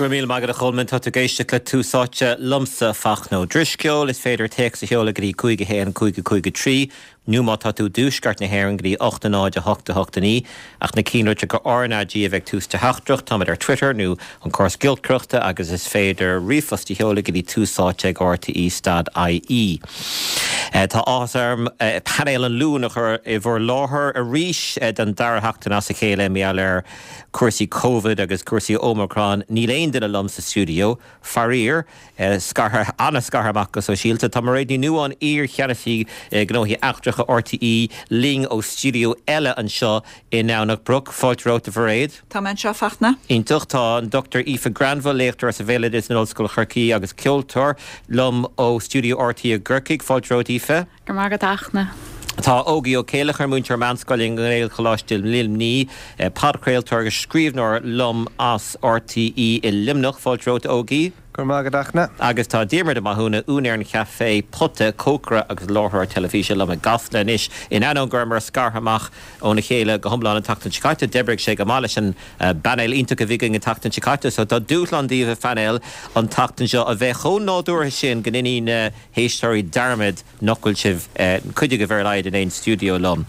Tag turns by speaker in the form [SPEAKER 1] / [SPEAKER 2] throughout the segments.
[SPEAKER 1] Go raibh míle maith agat a Cholmáin. Tá tú ag éisteacht le Tús Áite liomsa, Fachtna Ó Drisceoil. Is féidir téacs a sheoladh go dtí 5 1 5 5 3 nó má tá tú i dtuaisceart na hÉireann go dtí 8 0 8 8 9 ach na cinnlitreacha RnaG a bheith ag tús do theachtaireacht. Táimid ar Twitter nó an córas giolcaireachta agus is féidir ríomhphost a sheoladh go dtí túsáite ag rte stad ie. Tá áthas orm painéal an Luain a chur i bhur láthair arís don dara sheachtain as a chéile mar gheall ar cúrsaí Covid agus cúrsaí Omicron. Níl aon duine liom sa stiúideo, faraor. Scartha, an-scartha amach go sóisialta. Tá Mairéad Ní Nuadháin, iar-Cheannasaí Gnóthaí Eachtracha RTÉ, linn ó stiúideo eile anseo i nDomhnach Broc. Fáilte romhat, a Mhairéad.
[SPEAKER 2] Tá mé anseo, a Fachtna.
[SPEAKER 1] Iontach. Tá an Dr Aoife Granville, léachtóir sa Bhéaloideas in Ollscoil Chorcaí agus ceoltóir, liom ó stiúideo RTÉ i gCorcaigh. Fáilte romhat, Aoife.
[SPEAKER 3] Go raibh maith agat, a Fhachtna.
[SPEAKER 1] Tá Ógie Ó Céileachair, múinteoir meánscoile i nGaelcholáiste Luimnigh, podchraoltóir agus scríbhneoir liom as RTÉ i Luimneach. Fáilte romhat, Ógie.
[SPEAKER 4] Go raibh maith agat, a Fhachtna.
[SPEAKER 1] Agus tá Diarmuid Ó Mathúna, úinéir an chaifé Pota, cócaire agus láithreoir teilifíse liom i gCasla anois. In ainneoin go rabhamar scartha amach óna chéile go hiomlán an tseachtain seo caite, d'oibrigh sé go maith leis an bpainéal iontach a bhí againn an tseachtain seo caite. So tá dúshlán daoibh, a phainéal, an tseachtain seo a bheith chomh nádúrtha sin go ndéanfaidh na héisteoirí dearmad nach bhfuil sibh, cuid agaibh ar a laghad, in aon stiúideo liom.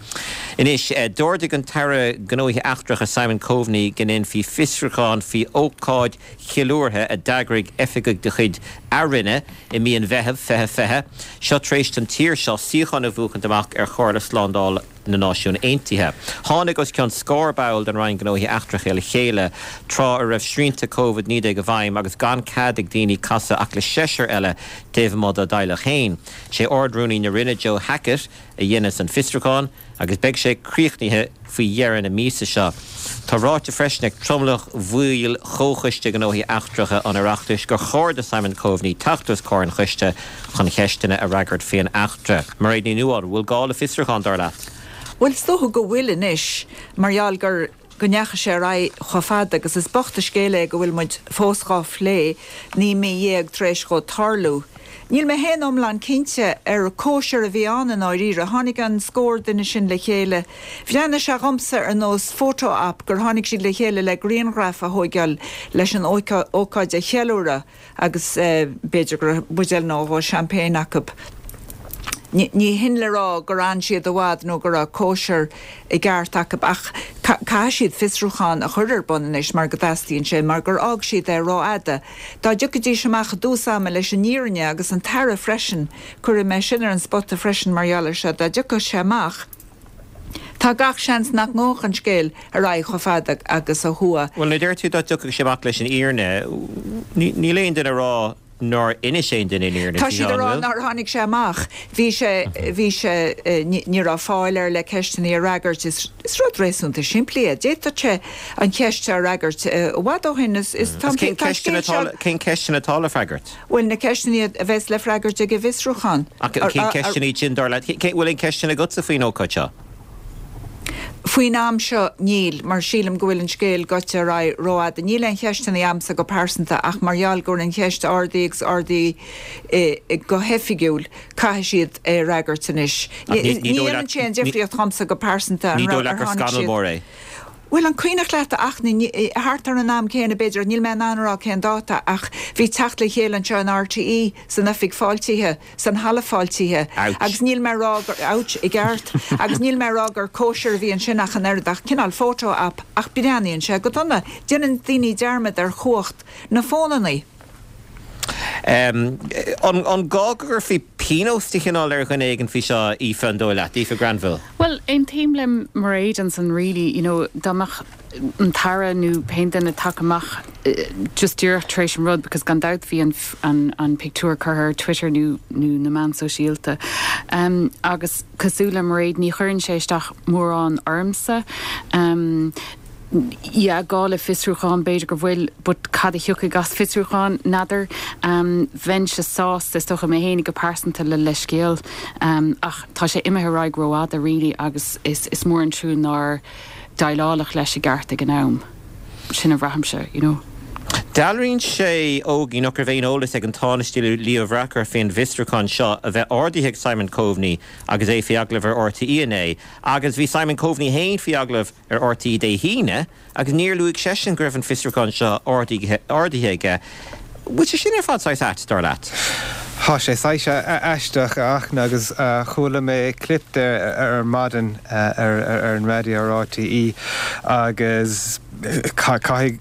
[SPEAKER 1] Anois, d'ordaigh an tAire Gnóthaí Eachtracha Simon Coveney go ndéanfaí fiosrúchán faoi ócáid cheiliúrtha a d'eagraigh oifigigh de chuid a Roinne i mí an Mheithimh 2020, seo tar éis don tír seo suíochán a bhuachaint amach ar Chomhairle Slándála na Náisiún Aontaithe. Tháinig os cionn scór ball den Roinn Gnóthaí Eachtracha le chéile tráth a raibh srianta Covid-19 i bhfeidhm agus gan cead ag daoine casadh ach le seisear eile taobh amuigh dá dteaghlach féin. Sé Ard-Rúnaí na Roinne Joe Hackett a dhéanas an fiosrúchán agus beidh sé críochnaithe faoi dheireadh na míosa seo. Tá ráite freisin ag tromlach bhaill Chomhchoiste Gnóthaí Eachtracha an Oireachtais gur chóir do Simon Coveney teacht os comhair an choiste chun ceisteanna a fhreagairt faoin eachtra. Mairéad Ní Nuadháin, bhfuil gá le fiosrúchán, dar leat?
[SPEAKER 2] Bhuel, is dócha go bhfuil anois, mar gheall gur, go ndeachaigh sé ar aghaidh chomh fada agus is bocht an scéal é go bhfuil muid fós dhá phlé, 19 mí tar éis dhó tarlú. Níl mé féin iomlán cinnte ar cóisir a bhí ann i ndáiríre. Tháinig an scór duine sin le chéile. Bhreathnaigh sé dhomsa ar nós photo op gur tháinig siad le chéile le grianghraif a thóigeáil leis an ócáid a cheiliúradh. agus b'fhéidir go raibh buidéal nó dhó champagne acu. Ní hin le rá gur fhan siad i bhfad nó go raibh cóisir i gceart acu ach caithfidh siad fiosrúchán a chur ar bun anois mar go dteastaíonn sé, mar gur fhág siad é rófhada. Dá dtiocfaidís amach i dtús ama leis an fhírinne agus an tAire freisin, cuirfidh mé sin ar an spota freisin mar gheall air seo, dá dtiocfadh sé amach, Tá gach seans nach ngabhfadh an scéal ar aghaidh chomh fada agus a chuaigh.
[SPEAKER 1] Bhuel, nuair a deir tú dá dtiocfadh sé amach leis an fhírinne, níl aon duine ag rá nár inis aon duine an fhírinne
[SPEAKER 2] Tá siad ag rá nár tháinig sé amach. Bhí sé, bhí sé, ní raibh fáil air le ceisteanna a fhreagairt. Is rud réasúnta simplí é. D'fhéadfadh sé an cheist seo a fhreagairt i bhfad ó shin. Is, tá an
[SPEAKER 1] scéal seo. Cén ceisteanna atá le freagairt?
[SPEAKER 2] Bhuel, na ceisteanna a bheas le freagairt ag an bhfiosrúchán.
[SPEAKER 1] Ach cén ceisteanna iad sin, dar leat? Bhfuil aon ceisteanna agatsa faoin ócáid seo?
[SPEAKER 2] Faoin am seo, níl, mar sílim go bhfuil an scéal gaibhte ar aghaidh rófhada. Níl aon cheisteanna a'msa go pearsanta ach mar gheall go bhfuil an cheist ardaithe agus ardaithe go hoifigiúil, caithfidh siad é a fhreagairt anois. Ní dhéanann sé aon difríocht dhomsa go pearsanta
[SPEAKER 1] an raibh, ar tháinig siad.
[SPEAKER 2] Bhuel, an cuimhneach leat, a Fhachtna, thart ar an am céanna, b'fhéidir, níl mé in ann a rá cén dáta, ach bhí teacht le chéile anseo in RTÉ, san oifig fáiltithe, san halla fáiltithe, agus níl mé a rá gur, ouch, i gceart, agus níl mé a rá gur cóisir a bhí ansin ach an oiread, ach cineál photo op, ach breathnaíonn sé go dona. Déanann daoine dearmad ar chumhacht na bhfónannaí.
[SPEAKER 1] An gá go gcuirfí pionós de chineál ar dhuine éigin faoi seo, Aoife, an dóigh leat? Aoife Granville.
[SPEAKER 3] Bhuel, aontaím le Mairéad ansan really, you know, dá mbeadh an tAire nó pé duine tagtha amach just díreach tar éis an rud because gan dabht bhí an, an, an pictiúr curtha ar Twitter nó, nó na meáin sóisialta. Um, agus cosúil le Mairéad ní chuireann sé isteach mórán ormsa. Um, yeah, gá le fiosrúchán, b'fhéidir go bhfuil, but cad a thiocfaidh as fiosrúchán, n'fheadar. Bheinnse sásta, is dócha, mé fhéinig go pearsanta le leithscéal, ach tá sé imithe ar aghaidh rófhada really agus is is mór an trua nár déileáladh leis i gceart ag an am. Sin a bhraithimse, you know.
[SPEAKER 1] Dealraíonn sé, Ógie, nach raibh aon eolas ag an Tánaiste Leo Varadkar faoin bhfiosrúchán seo a bheith ardaithe ag Simon Coveney agus é faoi agallamh ar RTÉ inné. Agus bhí Simon Coveney féin faoi agallamh ar RTÉ Dé hAoine agus níor luaigh seisean go raibh an fiosrúchán seo ardaithe aige. Bhfuil sé sin ar fad saghas ait, dar leat?
[SPEAKER 4] Tá sé saghas aisteach, a Fhachtna, agus chuala mé clip de ar maidin ar an raidió ar RTÉ agus caithfidh,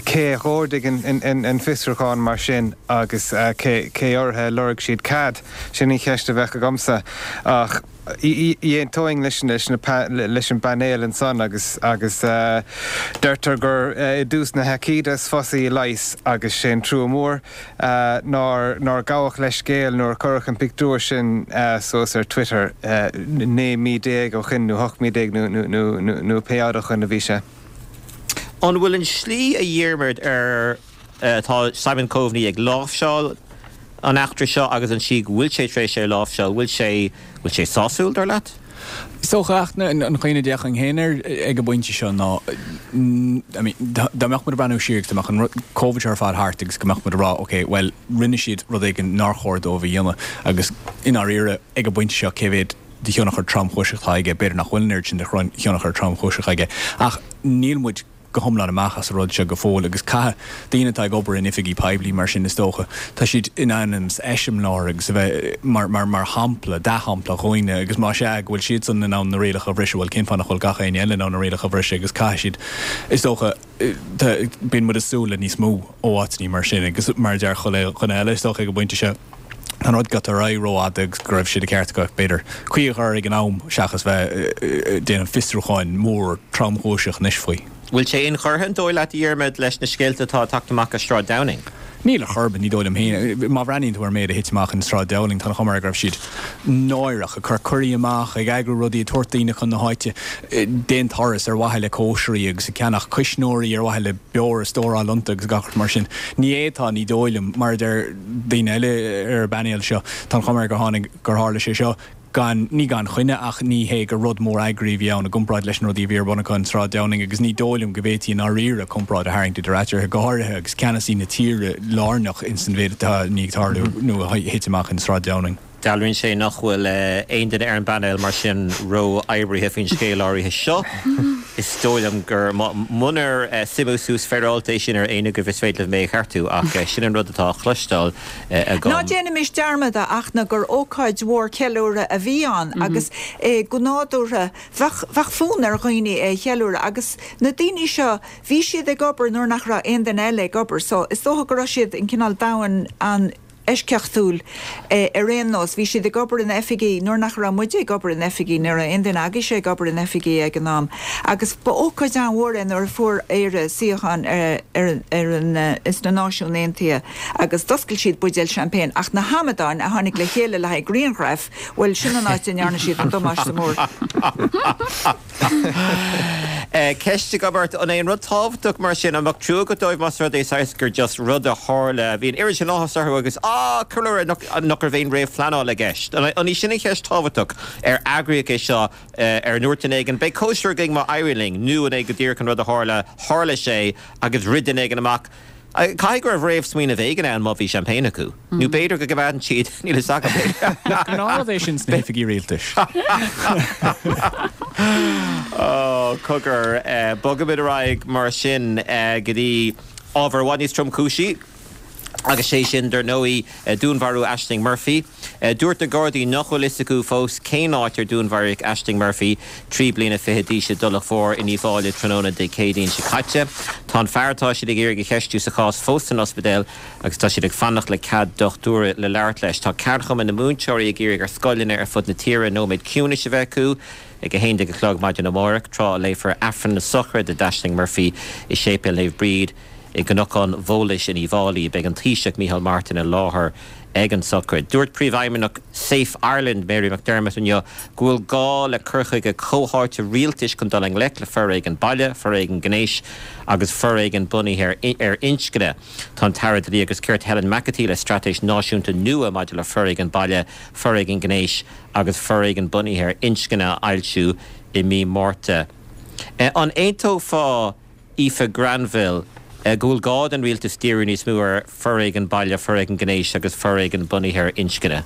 [SPEAKER 4] cé a dh'ordaigh an fiosrúchán mar sin agus cé orthu a lorg siad cead? Sin an cheist a bheadh agamsa. Ach aontóinn leis an bpainéal ansan agus agus deirtear gur i dtús na haicíde is fusa í a leigheas agus sé an trua mór nár nár gabhadh leithscéal nuair a cuireadh an pictiúr sin suas ar Twitter 19 mí ó shin nó 18 mí nó nó pé fhad ó shin a bhí sé.
[SPEAKER 1] An bhfuil an slí a Dhiarmuid ar atá Simon Coveney ag láimhseáil an eachtra seo agus an tslí go bhfuil sé tar éis é a láimhseáil, bhfuil sé, bhfuil sé sásúil, dar leat?
[SPEAKER 5] Is dócha, an chaoi a d'fhéachfainn féin air ag an bpointe seo ná, I mean, dá mbeadh muid ag breathnú siar agus dá mbeadh an Covid seo ar fad thart agus go mbeadh muid ag rá, ok, bhuel, rinne siad rud éigin nár chóir dóibh a dhéanamh agus i ndáiríre, ag an bpointe seo, cé mhéad de thionchar tromchúiseach atá aige, b'fhéidir nach bhfuil an oiread sin de thionchar tromchúiseach aige ach níl muid go hiomlán amach as an rud seo go fóill agus caithfidh daoine atá ag obair in oifigí poiblí mar sin is dócha, tá siad in ainm is eiseamláir agus a bheith mar, mar, mar shampla, dea-shampla dhaoine agus más ea go bhfuil siadsan in ann na rialacha a bhriseadh, bhuel cén fáth nach bhfuil gach éinne eile in ann na rialacha a bhriseadh agus caithfidh siad, is dócha, tá, bíonn muid ag súil le níos mó ó áiteanna mar sin agus mar a deir chuile dhuine eile is dócha ag an bpointe seo. Tá an rud gaibhte ar aghaidh rófhada agus go raibh sé de cheart acu, b'fhéidir, caoi a chur ag an am seachas bheith ag déanamh fiosrúcháin mór tromchúiseach anois faoi.
[SPEAKER 1] Bhfuil sé inchurtha, an dóigh leat, a Dhiarmaid, leis na scéalta atá ag teacht amach as Sráid Downing?
[SPEAKER 5] Níl ar chor ar bith, ní dóigh liom féin. Má bhreathnaíonn tú ar an méid a thit amach in Sráid Downing, tá an chuma air go raibh siad náireach, ag cur cuirí amach, ag eagrú rudaí, ag tabhairt daoine chun na háite d'aon turas ar mhaithe le cóisirí agus ag ceannach cuisneoirí ar mhaithe le beoir a stóráil iontu agus gach rud mar sin. Ní fhéadfá, ní dóigh liom, mar a deir daoine eile ar an bpainéal seo, tá an chuma air gur tháinig, gur tharla sé seo gan, ní gan choinne ach ní hé gur rud mór eagraithe a bhí ann i gcomparáid leis na rudaí a bhí ar bun acu in Sráid Downing agus ní dóigh liom go bhféadfaí i ndáiríre comparáid a tharraingt idir eatarthu, go háirithe agus ceannasaí na tíre lárnach ins an mhéid atá i ndiaidh tarlú nó a thit amach in Sráid Downing.
[SPEAKER 1] Dealraíonn sé nach bhfuil aon duine ar an bpainéal mar sin ró-oibrithe faoin scéal áirithe seo. Is dóigh liom gur, munar suimiú suas féaráilte é sin ar éinne agaibh is féidir libh mé a cheartú ach sin an rud atá á chloisteáil agam.
[SPEAKER 2] Ná déanaimis dearmad, a Fhachtna, gur ócáid mhór ceiliúrtha a bhí ann agus go nádúrtha bheadh, bheadh fonn ar dhaoine é a cheiliúradh agus na daoine seo, bhí siad ag obair nuair nach raibh aon duine eile ag obair so is dócha go raibh siad in cineál domhan an, eisceachtúil ar aon nós. Bhí siad ag obair in oifigí nuair nach raibh muide ag obair in oifigí, ní raibh aon duine agaibhse ag obair in oifigí ag an am. Agus ba ócáid an-mhór é nuair a fuair Éire suíochán ar ar an sna Náisiúin Aontaithe agus d'oscail siad buidéal champagne ach na hamadáin a tháinig le chéile le haghaidh grianghraif, bhuel sin an áit a ndearna siad an damáiste mór.
[SPEAKER 1] Ceist agam ort, an é an rud tábhachtach mar sin, an mbeadh trua agat dóibh más rud é saghas gur just rud a tharla, bhí an oiread sin áthas orthu agus ah, ceiliúradh, nach, nach raibh aon réamhphleanáil i gceist? An í sin an cheist thábhachtach? Ar eagraíodh é seo, ar ndúirt duine éigin, beidh cóisir againn má éiríonn linn, nó an é go díreach an rud a tharla, tharla sé agus rith duine éigin amach, Caithfidh go raibh réamhsmaoineamh éigin ann má bhí champagne acu. Nó b'fhéidir go gcoimeádann siad, níl fhios agam.
[SPEAKER 5] Nach gnáthrud é sin sna hoifigí rialtais?
[SPEAKER 1] Ó, cogar. Bogaimid ar aghaidh mar sin go dtí ábhar i bhfad níos tromchúisí, agus sé sin, dar ndóigh, dúnmharú Ashling Murphy. Dúirt na Gardaí nach bhfuil fhios acu fós cén áit ar dúnmharaíodh Ashling Murphy, 23 bliana d'aois i dTulach Mhór in Uíbh Fhailí tráthnóna Dé Céadaoin seo caite. Tá an fear atá siad ag iarraidh a cheistiú sa chás fós san ospidéal agus tá siad ag fanacht le cead dochtúra le labhairt leis. Tá Ceardchumann na Múinteoirí ag iarraidh ar scoileanna ar fud na tíre nóiméad ciúnais a bheith acu ag 11 a chlog maidin amárach, tráth a léifear Aifreann na Sochraide d'Ashling Murphy i Séipéal Naomh Bríd i gCnocán Bhólais in Uíbh Fhailí. Beidh an Taoiseach Micheál Martin i láthair ag an sochraid. Dúirt Príomhfheidhmeannach Safe Ireland, Mary McDermott inniu go bhfuil gá le cur chuige comhtháite rialtais chun dul i ngleic le foréigean baile, foréigean gnéis agus foréigean bunaithe ar inscne. Tá an tAire Dlí agus Cirt Helen McEntee le straitéis náisiúnta nua maidir le foréigean baile, foréigean gnéis agus foréigean bunaithe ar inscne a fhoilsiú i mí Márta. An aontófá Aoife Granville? go bhfuil gá don rialtas díriú níos mó ar foréigean baile, foréigean gnéis agus foréigean bunaithe ar inscne.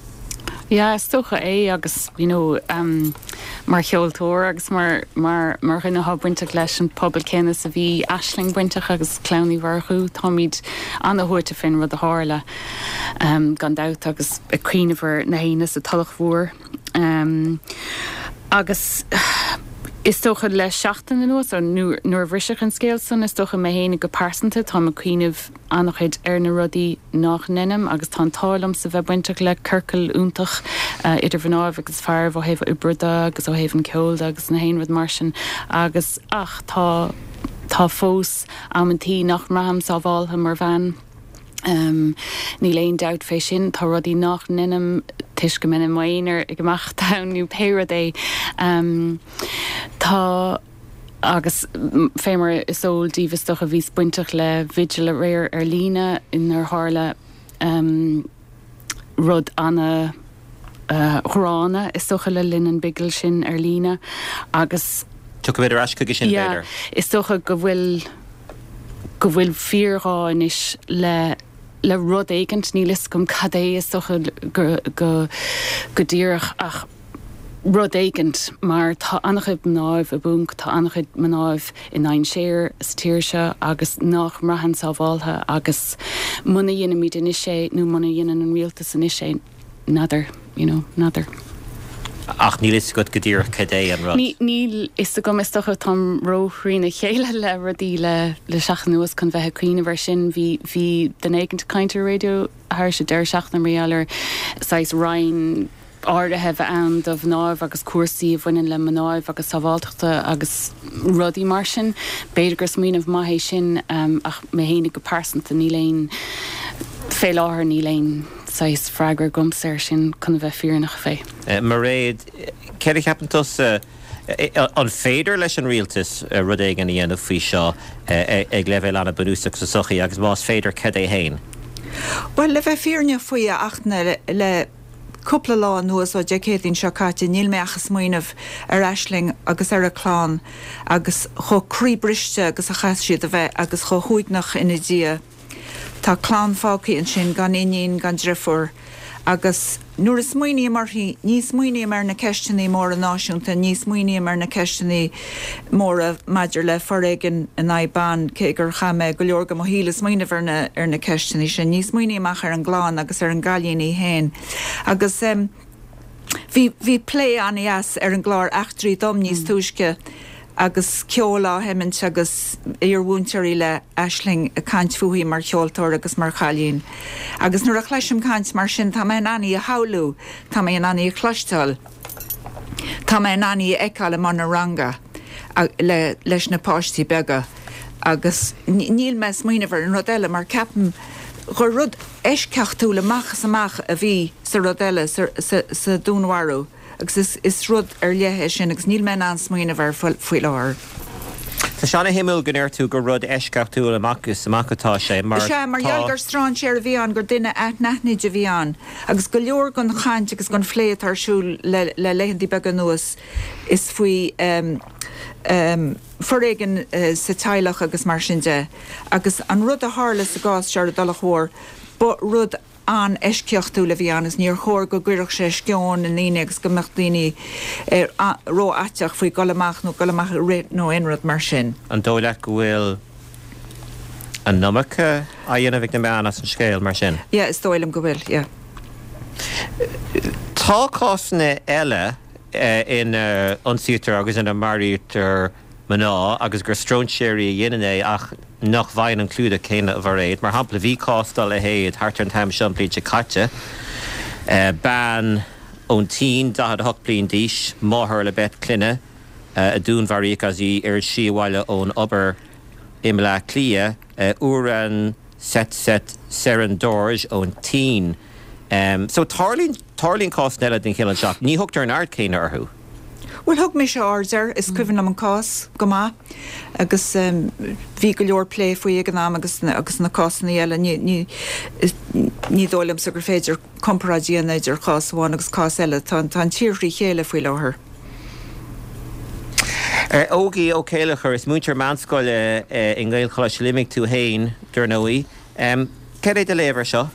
[SPEAKER 3] Yeah, is dócha é agus you know mar cheoltóir agus mar mar mar dhuine atá bainteach leis an pobal céanna is a bhí Aisling bainteach agus Clann Uí Mhurchú, táimid ana-shuaite fén rud a tharla gan dabht agus ag cuimhneamh ar na héinne sa Tulach Mhór. Agus is dócha le seachtain anuas, nuair a bhriseadh an scéal san, is dócha mé fhéinig go pearsanta, táim ag cuimhneamh an-chuid ar na rudaí nách ndeinim agus tá an t-ádh liomsa bheith bainteach le ciorcal iontach idir mhnáibh agus fearaibh ó thaobh oibre de agus ó thaobh an ceoil de agus na haon rud mar sin agus ach tá tá fós amantaí nach mbraithim sábháltha mar bhean. Níl aon dabht fé sin. Tá rudaí nách ndeinim toisc go mbeinn i m'aonar ag imeacht ann nó pé rud é. Tá, agus fé mar is eol daoibh is dócha, bhíos bainteach le vigil aréir ar líne inar tharla rud ana ghránna is dócha le linn an bhigil sin ar líne agus.
[SPEAKER 1] Tiocfaimid ar ais chuige sin
[SPEAKER 3] b'fhéidir. Is dócha go bhfuil go bhfuil fíorghá anois le le rud éigint, níl fhios agam cad é is dócha go go go díreach ach rud éigint mar tá an-chuid mnáibh i bponc, tá an-chuid mnáibh i ndainséar sa tír seo agus nách mbraitheann sábháltha agus muna dheinimid anois é nó muna dheineann an rialtas anois é, n'fheadar, you know, n'fheadar.
[SPEAKER 1] Ach níl fhios agat go díreach cad é an rud?
[SPEAKER 3] Níl fhios agam, is dócha, táim ró-thrína chéile le rudaí le le seachtain anuas chun bheith ag cuimhneamh air sin. Bhí, bhí duine éigint ag caint ar an raidió thairis an deireadh seachtaine mar gheall ar saghas roinn áirithe a bheith ann do mhnáibh agus cúrsaí a bhaineann le mnáibh agus sábháltachta agus rudaí mar sin. B'fhéidir gur smaoineamh maith é sin ach mé fhéinig go pearsanta níl aon, fé láthair níl aon. saghas freagra agamsa air sin chun a bheith fírinneach fé.
[SPEAKER 1] Mairéad, céard a cheapann tusa, an féidir leis an rialtas rud éigin a dhéanamh faoi seo ag leibhéal an-bhunúsach sa tsochaí agus más féidir, cad é fhéin?
[SPEAKER 2] Bhuel, le bheith fírinneach faoi, a Fhachtna, le cúpla lá anuas, ó Dé Céadaoin seo caite, níl mé ach ag smaoineamh ar Aisling agus ar a clann agus chomh croíbhriste agus a chaithfidh siad a bheith agus chomh huaigneach ina diaidh. Tá clann fágtha ansin gan iníon gan driofúr agus nuair a smaoiním uirthi, ní smaoiním ar na ceisteanna móra náisiúnta, ní smaoiním ar na ceisteanna móra maidir le foréigean in aghaidh ban, cé gur chaith mé go leor de mo shaol ag smaoineamh ar na ar na ceisteanna sin. Ní smaoiním ach ar an gclann agus ar an gcailín í féin. Agus. Bhí, bhí plé an-dheas ar an gclár Eachtraí Dom níos túisce agus ceol á sheimint agus iar-mhúinteoirí le Aisling ag caint fúithi mar cheoltóir agus mar chailín. Agus nuair a chloisim caint mar sin tá mé in ann í a shamhlú, tá mé in ann í a chloisteáil, tá mé in ann í a fheiceáil i mbun a ranga le, leis na páistí beaga agus níl mé ag smaoineamh ar an rud eile mar ceapaim gur rud eisceachtúil amach is amach a bhí sa rud eile, sa dúnmharú, agus is rud ar leith é sin agus níl mé in ann smaoineamh air faoi láthair.
[SPEAKER 1] Tá sé ana-shuimiúil go ndeir tú gur rud eisceachtúil amach is amach atá sé, mar
[SPEAKER 2] tá. Sea, mar gheall gur strainséir a bhí ann, gur duine anaithnid a bhí ann, agus go leor den chaint agus den phlé atá ar siúl le laethantaí beaga anuas, is faoi foréigean sa teaghlach agus mar sin de. Agus an rud a tharla sa gcás seo ar an dTulach Mhór, ba rud an-eisceachtúil a bhí ann agus níor chóir go gcuirfeadh sé sceon i ndaoine agus go mbeadh daoine rófhaiteach faoi dhul amach nó dul amach ag rith nó aon rud mar sin.
[SPEAKER 1] An dóigh leat go bhfuil an iomarca á dhéanamh ag na meáin as an scéal mar sin?
[SPEAKER 2] Yeah, is dóigh liom go bhfuil, yeah.
[SPEAKER 1] Tá cásanna eile ina n-ionsaítear agus ina maraítear mná agus gur stróinséirí a dhéanann é ach nach bhfaigheann an clúdach céanna, a Mhairéad. Mar shampla, bhí cás dá leithéid thart ar an t-am seo an bhliain seo caite. Bean ón tSín, 48 bliain d'aois, máthair le beirt clainne, a dúnmharaíodh agus í ar a slí abhaile ón obair i mBleá Cliath, Uren Tsetset Tserendorj ón tSín. So tarlaíonn, tarlaíonn cásanna eile den chineál seo ach ní thugtar an aird chéanna orthu.
[SPEAKER 2] Bhuel, thug mise aird air, is cuimhin liom an cás go maith agus bhí go leor plé faoi ag an am agus agus na cásanna eile, ní, ní, ní dóigh liomsa gur féidir comparáid a dhéanamh idir chás amháin agus cás eile, tá, tá an tír thrí chéile faoi láthair.
[SPEAKER 1] Ógie Ó Céilleachair, is múinteoir meánscoile i nGaelcholáiste Luimnigh tú féin, dar ndóigh. Céard é do léamh air seo?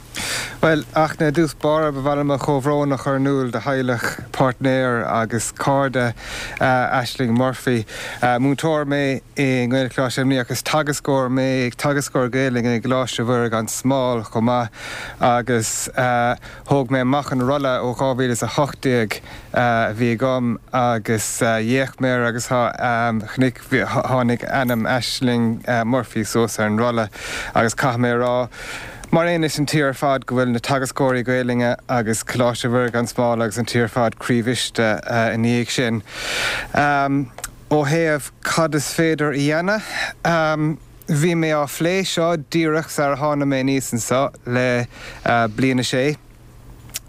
[SPEAKER 4] Bhuel, ach i dtús báire, ba mhaith liom mo chomhbhrón a chur in iúl do theaghlach, páirtnéir agus cairde Ashling Murphy. Múinteoir mé i nGaelcholáiste Luimnigh agus teagascóir mé, teagascóir Gaelainne i gColáiste Mhuire gan Smál chomh maith agus thóg mé amach an rolla ó 2018 a bhí agam agus d'fhéach mé air agus chonaic, tháinig ainm Ashling Murphy suas ar an rolla agus caithfidh mé a rá, mar aon leis an tír ar fad, go bhfuil na teagascóirí Gaelainne agus Coláiste Mhuire gan Smál agus an tír ar fad croíbhriste ina dhiaidh sin. Ó thaobh cad is féidir a dhéanamh, bhí mé á phlé seo díreach sar a tháinig mé aníos anseo le Bliain a Sé.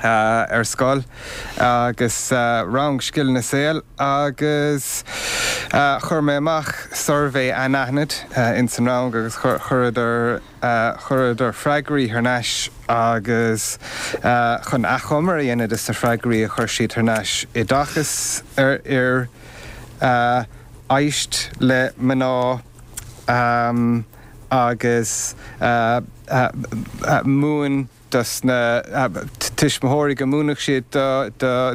[SPEAKER 4] ar scoil agus rang scileanna saoil agus chuir mé amach suirbhé anaithnid ins an rang agus chuireadar chuireadar freagraí thar n-ais agus chun achoimre a dhéanamh des na freagraí a chuir siad thar n-ais, oideachas ar fhir, éist le mná agus múin dos na tuismitheoirí go múinfeadh siad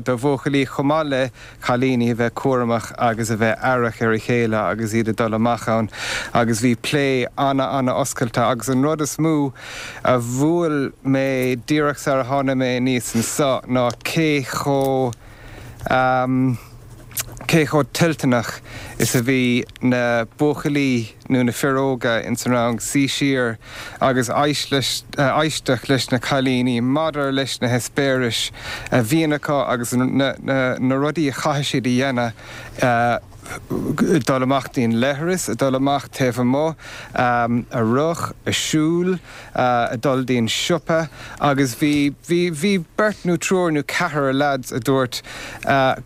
[SPEAKER 4] do bhuachaillí chomh maith le cailíní a bheith cúramach agus a bheith aireach ar a chéile agus iad ag dul amach ann agus bhí plé ana-ana-oscailte agus an rud is mó a bhuail mé díreach sar a tháinig mé aníos anso ná cé chomh cé chomh toilteanach is a bhí na buachaillí nó na fir óga ins an rang suí siar agus éisteacht leis na cailíní maidir leis na heispéiris a bhíonn acu agus na rudaí a chaithfidh siad a dhéanamh, dul amach dtí'n leithreas, a dul amach taobh amuigh, a rith, a siúl. a dul dtí'n siopa agus bhí, bhí, bhí beirt nó triúr nó ceathrar leaids a dúirt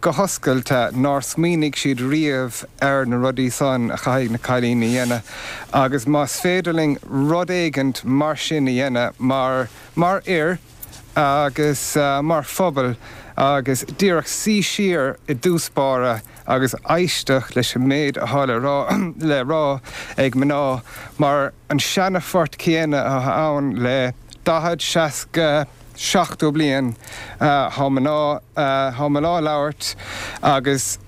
[SPEAKER 4] go hoscailte nár smaoinigh siad riamh ar na rudaí san a chaithfidh na cailíní a dhéanamh agus más féidir linn rud éigint mar sin a dhéanamh mar, mar fhir agus mar phobal agus díreach suí siar i dtús báire agus éisteacht leis an méid atá le rá le rá ag mná mar an seana-phort céanna atá ann le 40, 60, 70 bliain. Tá mná, tá mná ag labhairt agus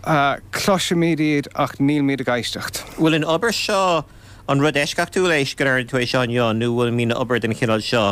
[SPEAKER 4] cloisimid iad ach nílmid ag éisteacht.
[SPEAKER 1] Bhfuil an obair seo, an rud eisceachtúil é go ndearna tú é seo inniu nó bhfuil mbíonn obair den chineál seo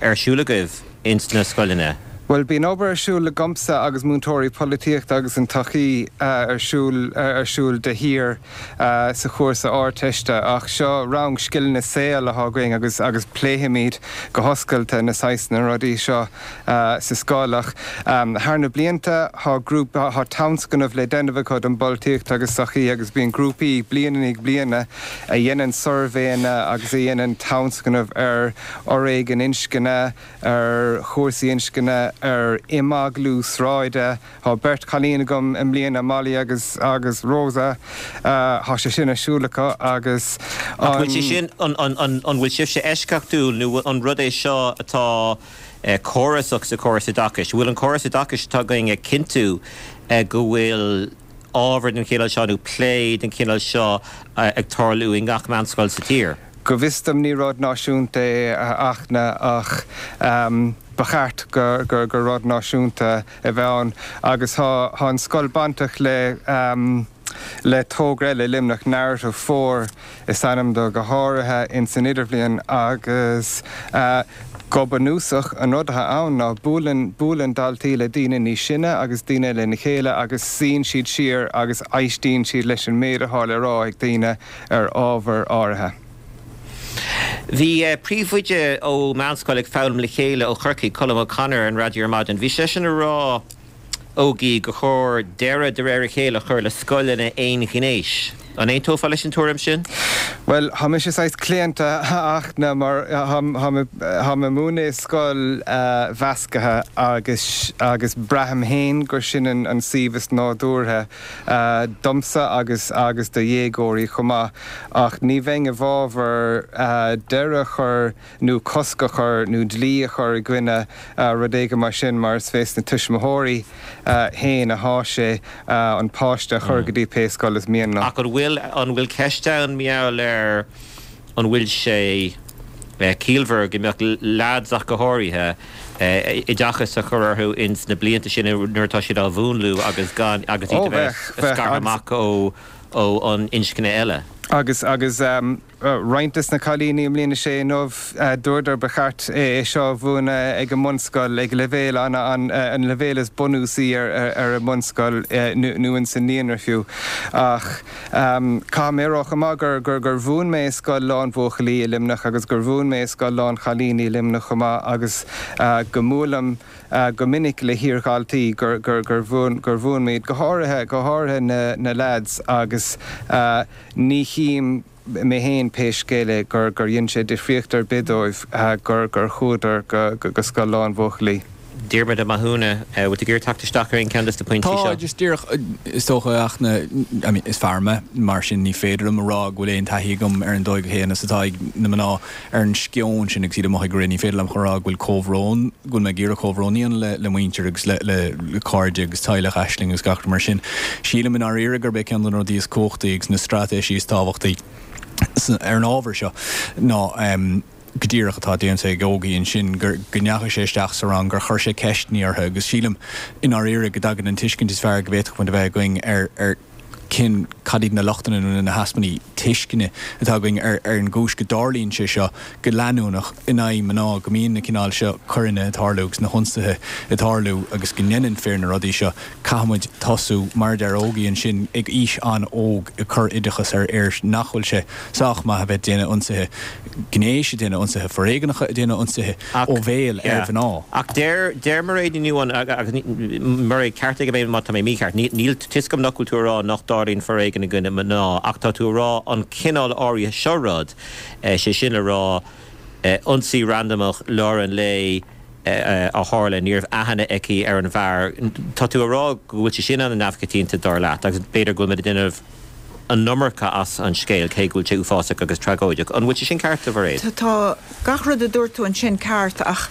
[SPEAKER 1] ar siúl agaibh ins na scoileanna?
[SPEAKER 4] Bhuel, bíonn obair ar siúl agamsa agus múinteoirí polaitíochta agus an tsochaí ar siúl ar siúl de shíor sa chúrsa Ardteiste ach seo rang scileanna saoil atá againn agus agus pléifimid go hoscailte na saghsanna rudaí seo sa scoil ach thar na blianta tá grúpa tá tionscnamh le déanamh acu don bpolaitíocht agus sochaí agus bíonn grúpaí bliain i ndiaidh bliana a dhéanann suirbhéanna agus a dhéanann tionscnamh ar fhoréigean inscne, ar chúrsaí inscne, ar imeaglú sráide. Tá beirt chailín agam i mbliana, Molly agus agus Rosa. Tá sé sin ar siúl acu agus
[SPEAKER 1] Ach bhfuil sé sin, an an bhfuil sibhse eisceachtúil nó an rud é seo atá córasach sa chóras oideachais? Bhfuil an córas oideachais atá againn ag cinntiú go bhfuil ábhar den chineál seo nó plé den chineál seo ag tarlú i ngach meánscoil sa tír?
[SPEAKER 4] Go bhfios dom ní rud náisiúnta é a Fhachtna ach ba cheart gur rud náisiúnta a bheith ann agus tá an scoil bainteach le le togra eile i Luimneach, Narrative 4 is ainm dó, go háirithe ins an idirbhliain agus go bunúsach an rud atá ann ná buaileann buaileann daltaí le daoine níos sine agus daoine lena chéile agus suíonn siad siar agus éistíonn siad leis an méid atá le rá ag daoine ar ábhar áirithe.
[SPEAKER 1] Bhí príomhoide ó Meánscoil Ag Foghlaim le Chéile ó Chorcaigh, Colm O'Connor, ar an raidió ar maidin. Bhí seisean ag rá, Ógie, gur chóir deireadh de réir a chéile a chur le scoileanna aonghnéis. An aontófá leis an tuairim sin?
[SPEAKER 4] Bhuel, tá mise saghas claonta, a Fhachtna, mar tá mé ag múineadh i scoil mheascaithe agus agus braithim féin gur sin an suíomh is nádúrtha domsa agus agus do dhéagóirí chomh maith. Ach ní bheinn i bhfabhar deireadh a chur nó cosc a chur nó dlí a chur i gcoinne rud éigin mar sin mar is fés na tuismitheoirí féin athá sé an páiste a chur go dtí pé scoil is mian leo.
[SPEAKER 1] Ach an bhfuil, an bhfuil ceist ann mar gheall ar an bhfuil sé ciallmhar go mbeadh leaids ach go háirithe, oideachas a chur orthu ins na blianta sin nuair atá siad á mhúnlú agus gan, agus iad a bheith scartha amach ó, ó an inscne eile?
[SPEAKER 4] Agus, agus. Roinnt des na cailíní i mbliain a sé inniu, dúradar ba cheart é seo a mhúineadh ag an mbunscoil, ag leibhéal an an leibhéal is bunúsaí ar an mbunscoil nó ins an naíonra fiú. Ach caithfidh mé a rá chomh maith gur gur gur mhúin mé i scoil lán-bhuachaillí i Luimneach agus gur mhúin mé i scoil lán-chailíní i Luimneach chomh maith agus go mbuailim go minic le hiardhaltaí gur gur gur mhúin gur mhúin mé iad, go háirithe go háirithe na na leaids agus Ní chím mé féin, pé scéal é, gur gur dhein sé difríocht ar bith dóibh gur gur chuadar go go scoil lán-bhuachaillí.
[SPEAKER 1] Diarmuid Ó Mathúna, bhfuil tú ag iarraidh teacht isteach ar aon cheann de na pointí
[SPEAKER 5] seo? Tá, just díreach, is dócha, a Fhachtna, I mean, is fear mé, mar sin ní féidir liom a rá go bhfuil aon taithí agam ar an dóigh chéanna is atá ag na mná ar an sceon sin agus iad amuigh ag rith. Ní féidir liom a rá go bhfuil comhbhrón, go bhfuil mé ag iarraidh comhbhrón a dhéanamh le muintir agus le cairde agus teaghlach Aisling agus gach rud mar sin. Sílim i ndáiríre gurb é ceann de na rudaí is cumhachtaí agus na straitéisí is tábhachtaí ar an ábhar seo ná go díreach atá déanta ag Ógie ansin, go ndeachaigh sé isteach sa rang, gur chuir sé ceisteanna orthu agus sílim i ndáiríre go dtagann an tuiscint is fearr go bhféadfadh muid a bheith againn ar cén, cad iad na lochtanna nó na heaspaí tuisceana atá againn ar ar an gcúis go dtarlaíonn sé seo go leanúnach in aghaidh mná, go mbíonn na cineál seo coireanna ag tarlú agus na hionsaithe ag tarlú agus go ndéanann fir na rudaí seo. Caithfidh muid tosú, mar a deir Ógie ansin, ag aois an-óg ag cur oideachas ar fhir nach bhfuil sé sách maith a bheith ag déanamh ionsaithe gnéis, ag déanamh ionsaithe foréigneacha, ag déanamh ionsaithe ó bhéal ar mhná.
[SPEAKER 1] Ach deir, deir Mairéad Ní Nuadháin, agus Mairéad, ceartaigh mé má tá mé mícheart, níl, tá 'fhios agam nach bhfuil tú a rá nach dtarlaíonn foréigean i gcoinne mná, ach tá tú a rá an cineál áirithe seo rud, sé sin le rá, ionsaí randamach lár an lae a tharla, ní raibh aithne aici ar an bhfear, tá tú a rá go bhfuil sé sin an-neamhchoitianta dar leat, agus b'fhéidir go bhfuil muid ag déanamh an iomarca as an scéal, cé go bhfuil sé uafásach agus tragóideach. An bhfuil sé sin ceart, a Mhairéad?
[SPEAKER 2] Tá gach rud a dúirt tú ansin ceart ach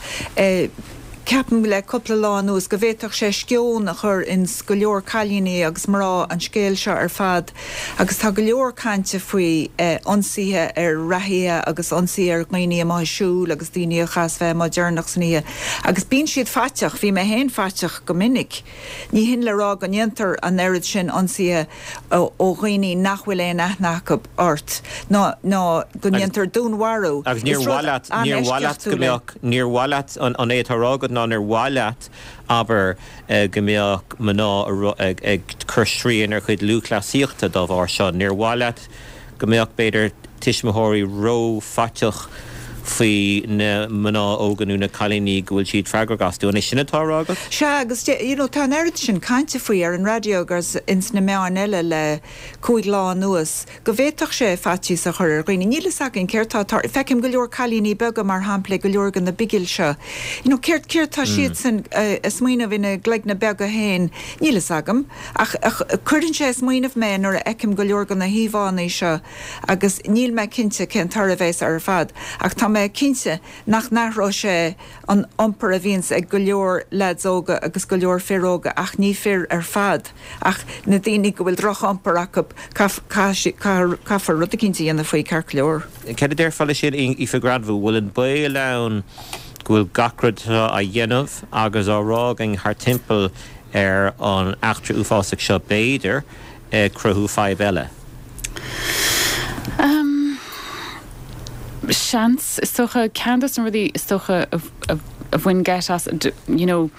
[SPEAKER 2] ceapaim le cúpla lá anuas go bhféadfadh sé sceon a chur ins go leor cailíní agus mná an scéal seo ar fad agus tá go leor cainte faoi ionsaithe ar reathaithe agus ionsaithe ar dhaoine amuigh ag siúl agus daoine a chaitheas bheith amuigh deireanach san oíche agus bíonn siad faiteach, bhí mé féin faiteach go minic. Ní hin le rá go ndéantar an oiread sin ionsaithe ó dhaoine nach bhfuil aon aithne acu ort, ná ná go ndéantar dúnmharú.
[SPEAKER 1] Agus níor mhaith leat, níor mhaith leat go mbeadh, níor mhaith leat, an é atá á rá agat ná níor mhaith leat, abair, go mbeadh mná ag cur srian ar chuid lúthchleasaíochta dá bharr seo, níor mhaith leat go mbeadh, b'fhéidir, tuismitheoirí ró-fhaiteach faoi na mná óga nó na cailíní go bhfuil siad freagrach astu. An é sin atá á rá agat?
[SPEAKER 2] Sea, agus you know tá an oiread sin cainte faoi ar an raidió agus ins na meáin eile le cúig lá anuas go bhféadfadh sé faitíos a chur ar dhaoine. Níl fhios againn céard tá ag tarlú. Feicim go leor cailíní beaga mar shampla ag go leor de na bigil seo. You know céard céard tá siadsan a smaoineamh ina gcloigne beaga féin? Níl fhios agam. Ach cuireann sé ag smaoineamh mé nuair a fheicim go leor de na híomhánna seo agus níl mé cinnte cén toradh a bheas air ar fad ach tá mé cinnte nach n-athróidh sé an iompar a bhíonns ag go leor leaids óga agus go leor fir óga ach ní fir ar fad ach na daoine go bhfuil droch-iompar acu caithfear rud eicínt a dhéanamh faoi ceart go leor.
[SPEAKER 1] Céard a déarfá leis sin Aoife Granville, bhfuil an baol ann go bhfuil gach rud atá á dhéanamh agus á rá againn thart timpeall ar an eachtra uafásach seo, b'fhéidir, ag cruthú fadhb eile.
[SPEAKER 3] Seans, is dócha. Ceann de na rudaí is dócha a bhain geit as, you know,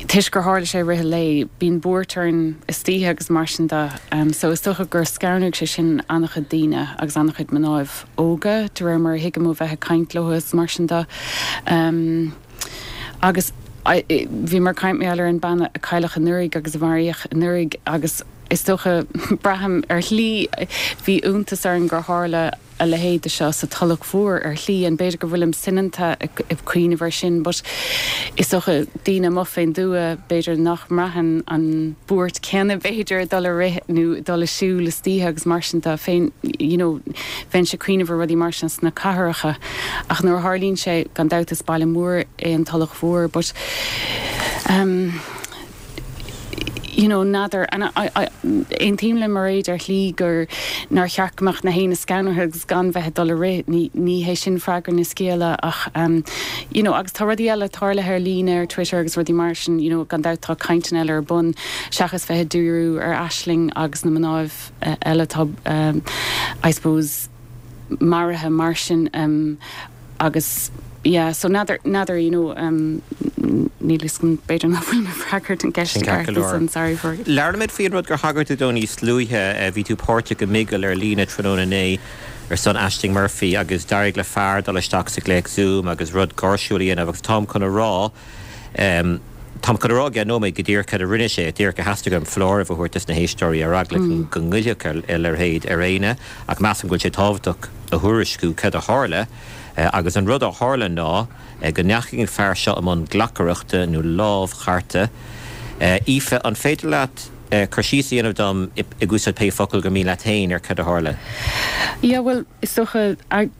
[SPEAKER 3] toisc gur tharla sé i rith an lae, bíonn buairt orainn istoíche agus mar sin de. So is dócha gur scanraigh sé sin an-chuid daoine agus an-chuid mnáibh óga, de réir mar a thuigim ó bheith ag caint leo is mar sin de. Agus bhíomar ag caint mar gheall ar an bean a cailleadh anuraidh agus a maraíodh anuraidh agus. Is dócha, braithim, ar shlí, bhí iontas orm gur tharla a leithéid de seo sa Tulach Mhór ar shlí, and b'fhéidir go bhfuilim soineanta ag cuimhneamh air sin but is dócha daoine amuigh fén dtuath b'fhéidir nach mbraitheann an buairt céanna b'fhéidir ag dul ag rith nó ag dul ag siúl istoíche agus mar sin de féin you know bheinnse ag cuimhneamh ar rudaí mar sin sna cathracha ach nuair a tharlaíonn sé gan dabht is baile mór é an Tulach Mhór but um you know, n'fheadar, and I, I, aontaím le Mairéad ar shlí gur, nár cheart go mbeadh na héinne scanraithe agus gan bheith ag dul ag rith, ní, ní hé sin freagra na scéala ach um, you know, agus tá rudaí eile tarlaithe ar líne ar Twitter agus rudaí mar sin, you know, gan dabht tá cainteanna eile ar bun seachas bheith ag díriú ar Aisling agus na mnáibh eile atá um, I suppose, maraithe mar sin um, agus yeah so n'fheadar, n'fheadar you know um níl fhios agam b'fhéidir nach bhfuil mé ag freagairt an ceist
[SPEAKER 1] Sin ceart go leor.
[SPEAKER 3] ansan sorry for.
[SPEAKER 1] Labhraímid faoi an rud gur thagair tú dó níos luaithe, bhí tú páirteach i mbigil ar líne tráthnóna inné ar son Ashling Murphy agus d'éirigh le fear dul isteach sa ghlaoch Zoom agus rud gáirsiúil a dhéanamh agus táim chun a rá em táim chun a rá i gceann nóiméad go díreach cad a rinne sé, díreach a theastaigh uaim foláireamh a thabhairt dos na héisteoirí ar eagla go ngoillfeadh a leithéid ar éinne ach measaim go bhfuil sé tábhachtach a thuairisciú cad a tharla agus an rud a tharla ná go ndeachaigh an fear seo i mbun glacaireachta nó lámhchartadh. Aoife, an féidir leat cur síos a dhéanamh dom, ag úsáid pé focal gur mian leat féin, ar cad a tharla?
[SPEAKER 3] Yeah, bhuel, is dócha,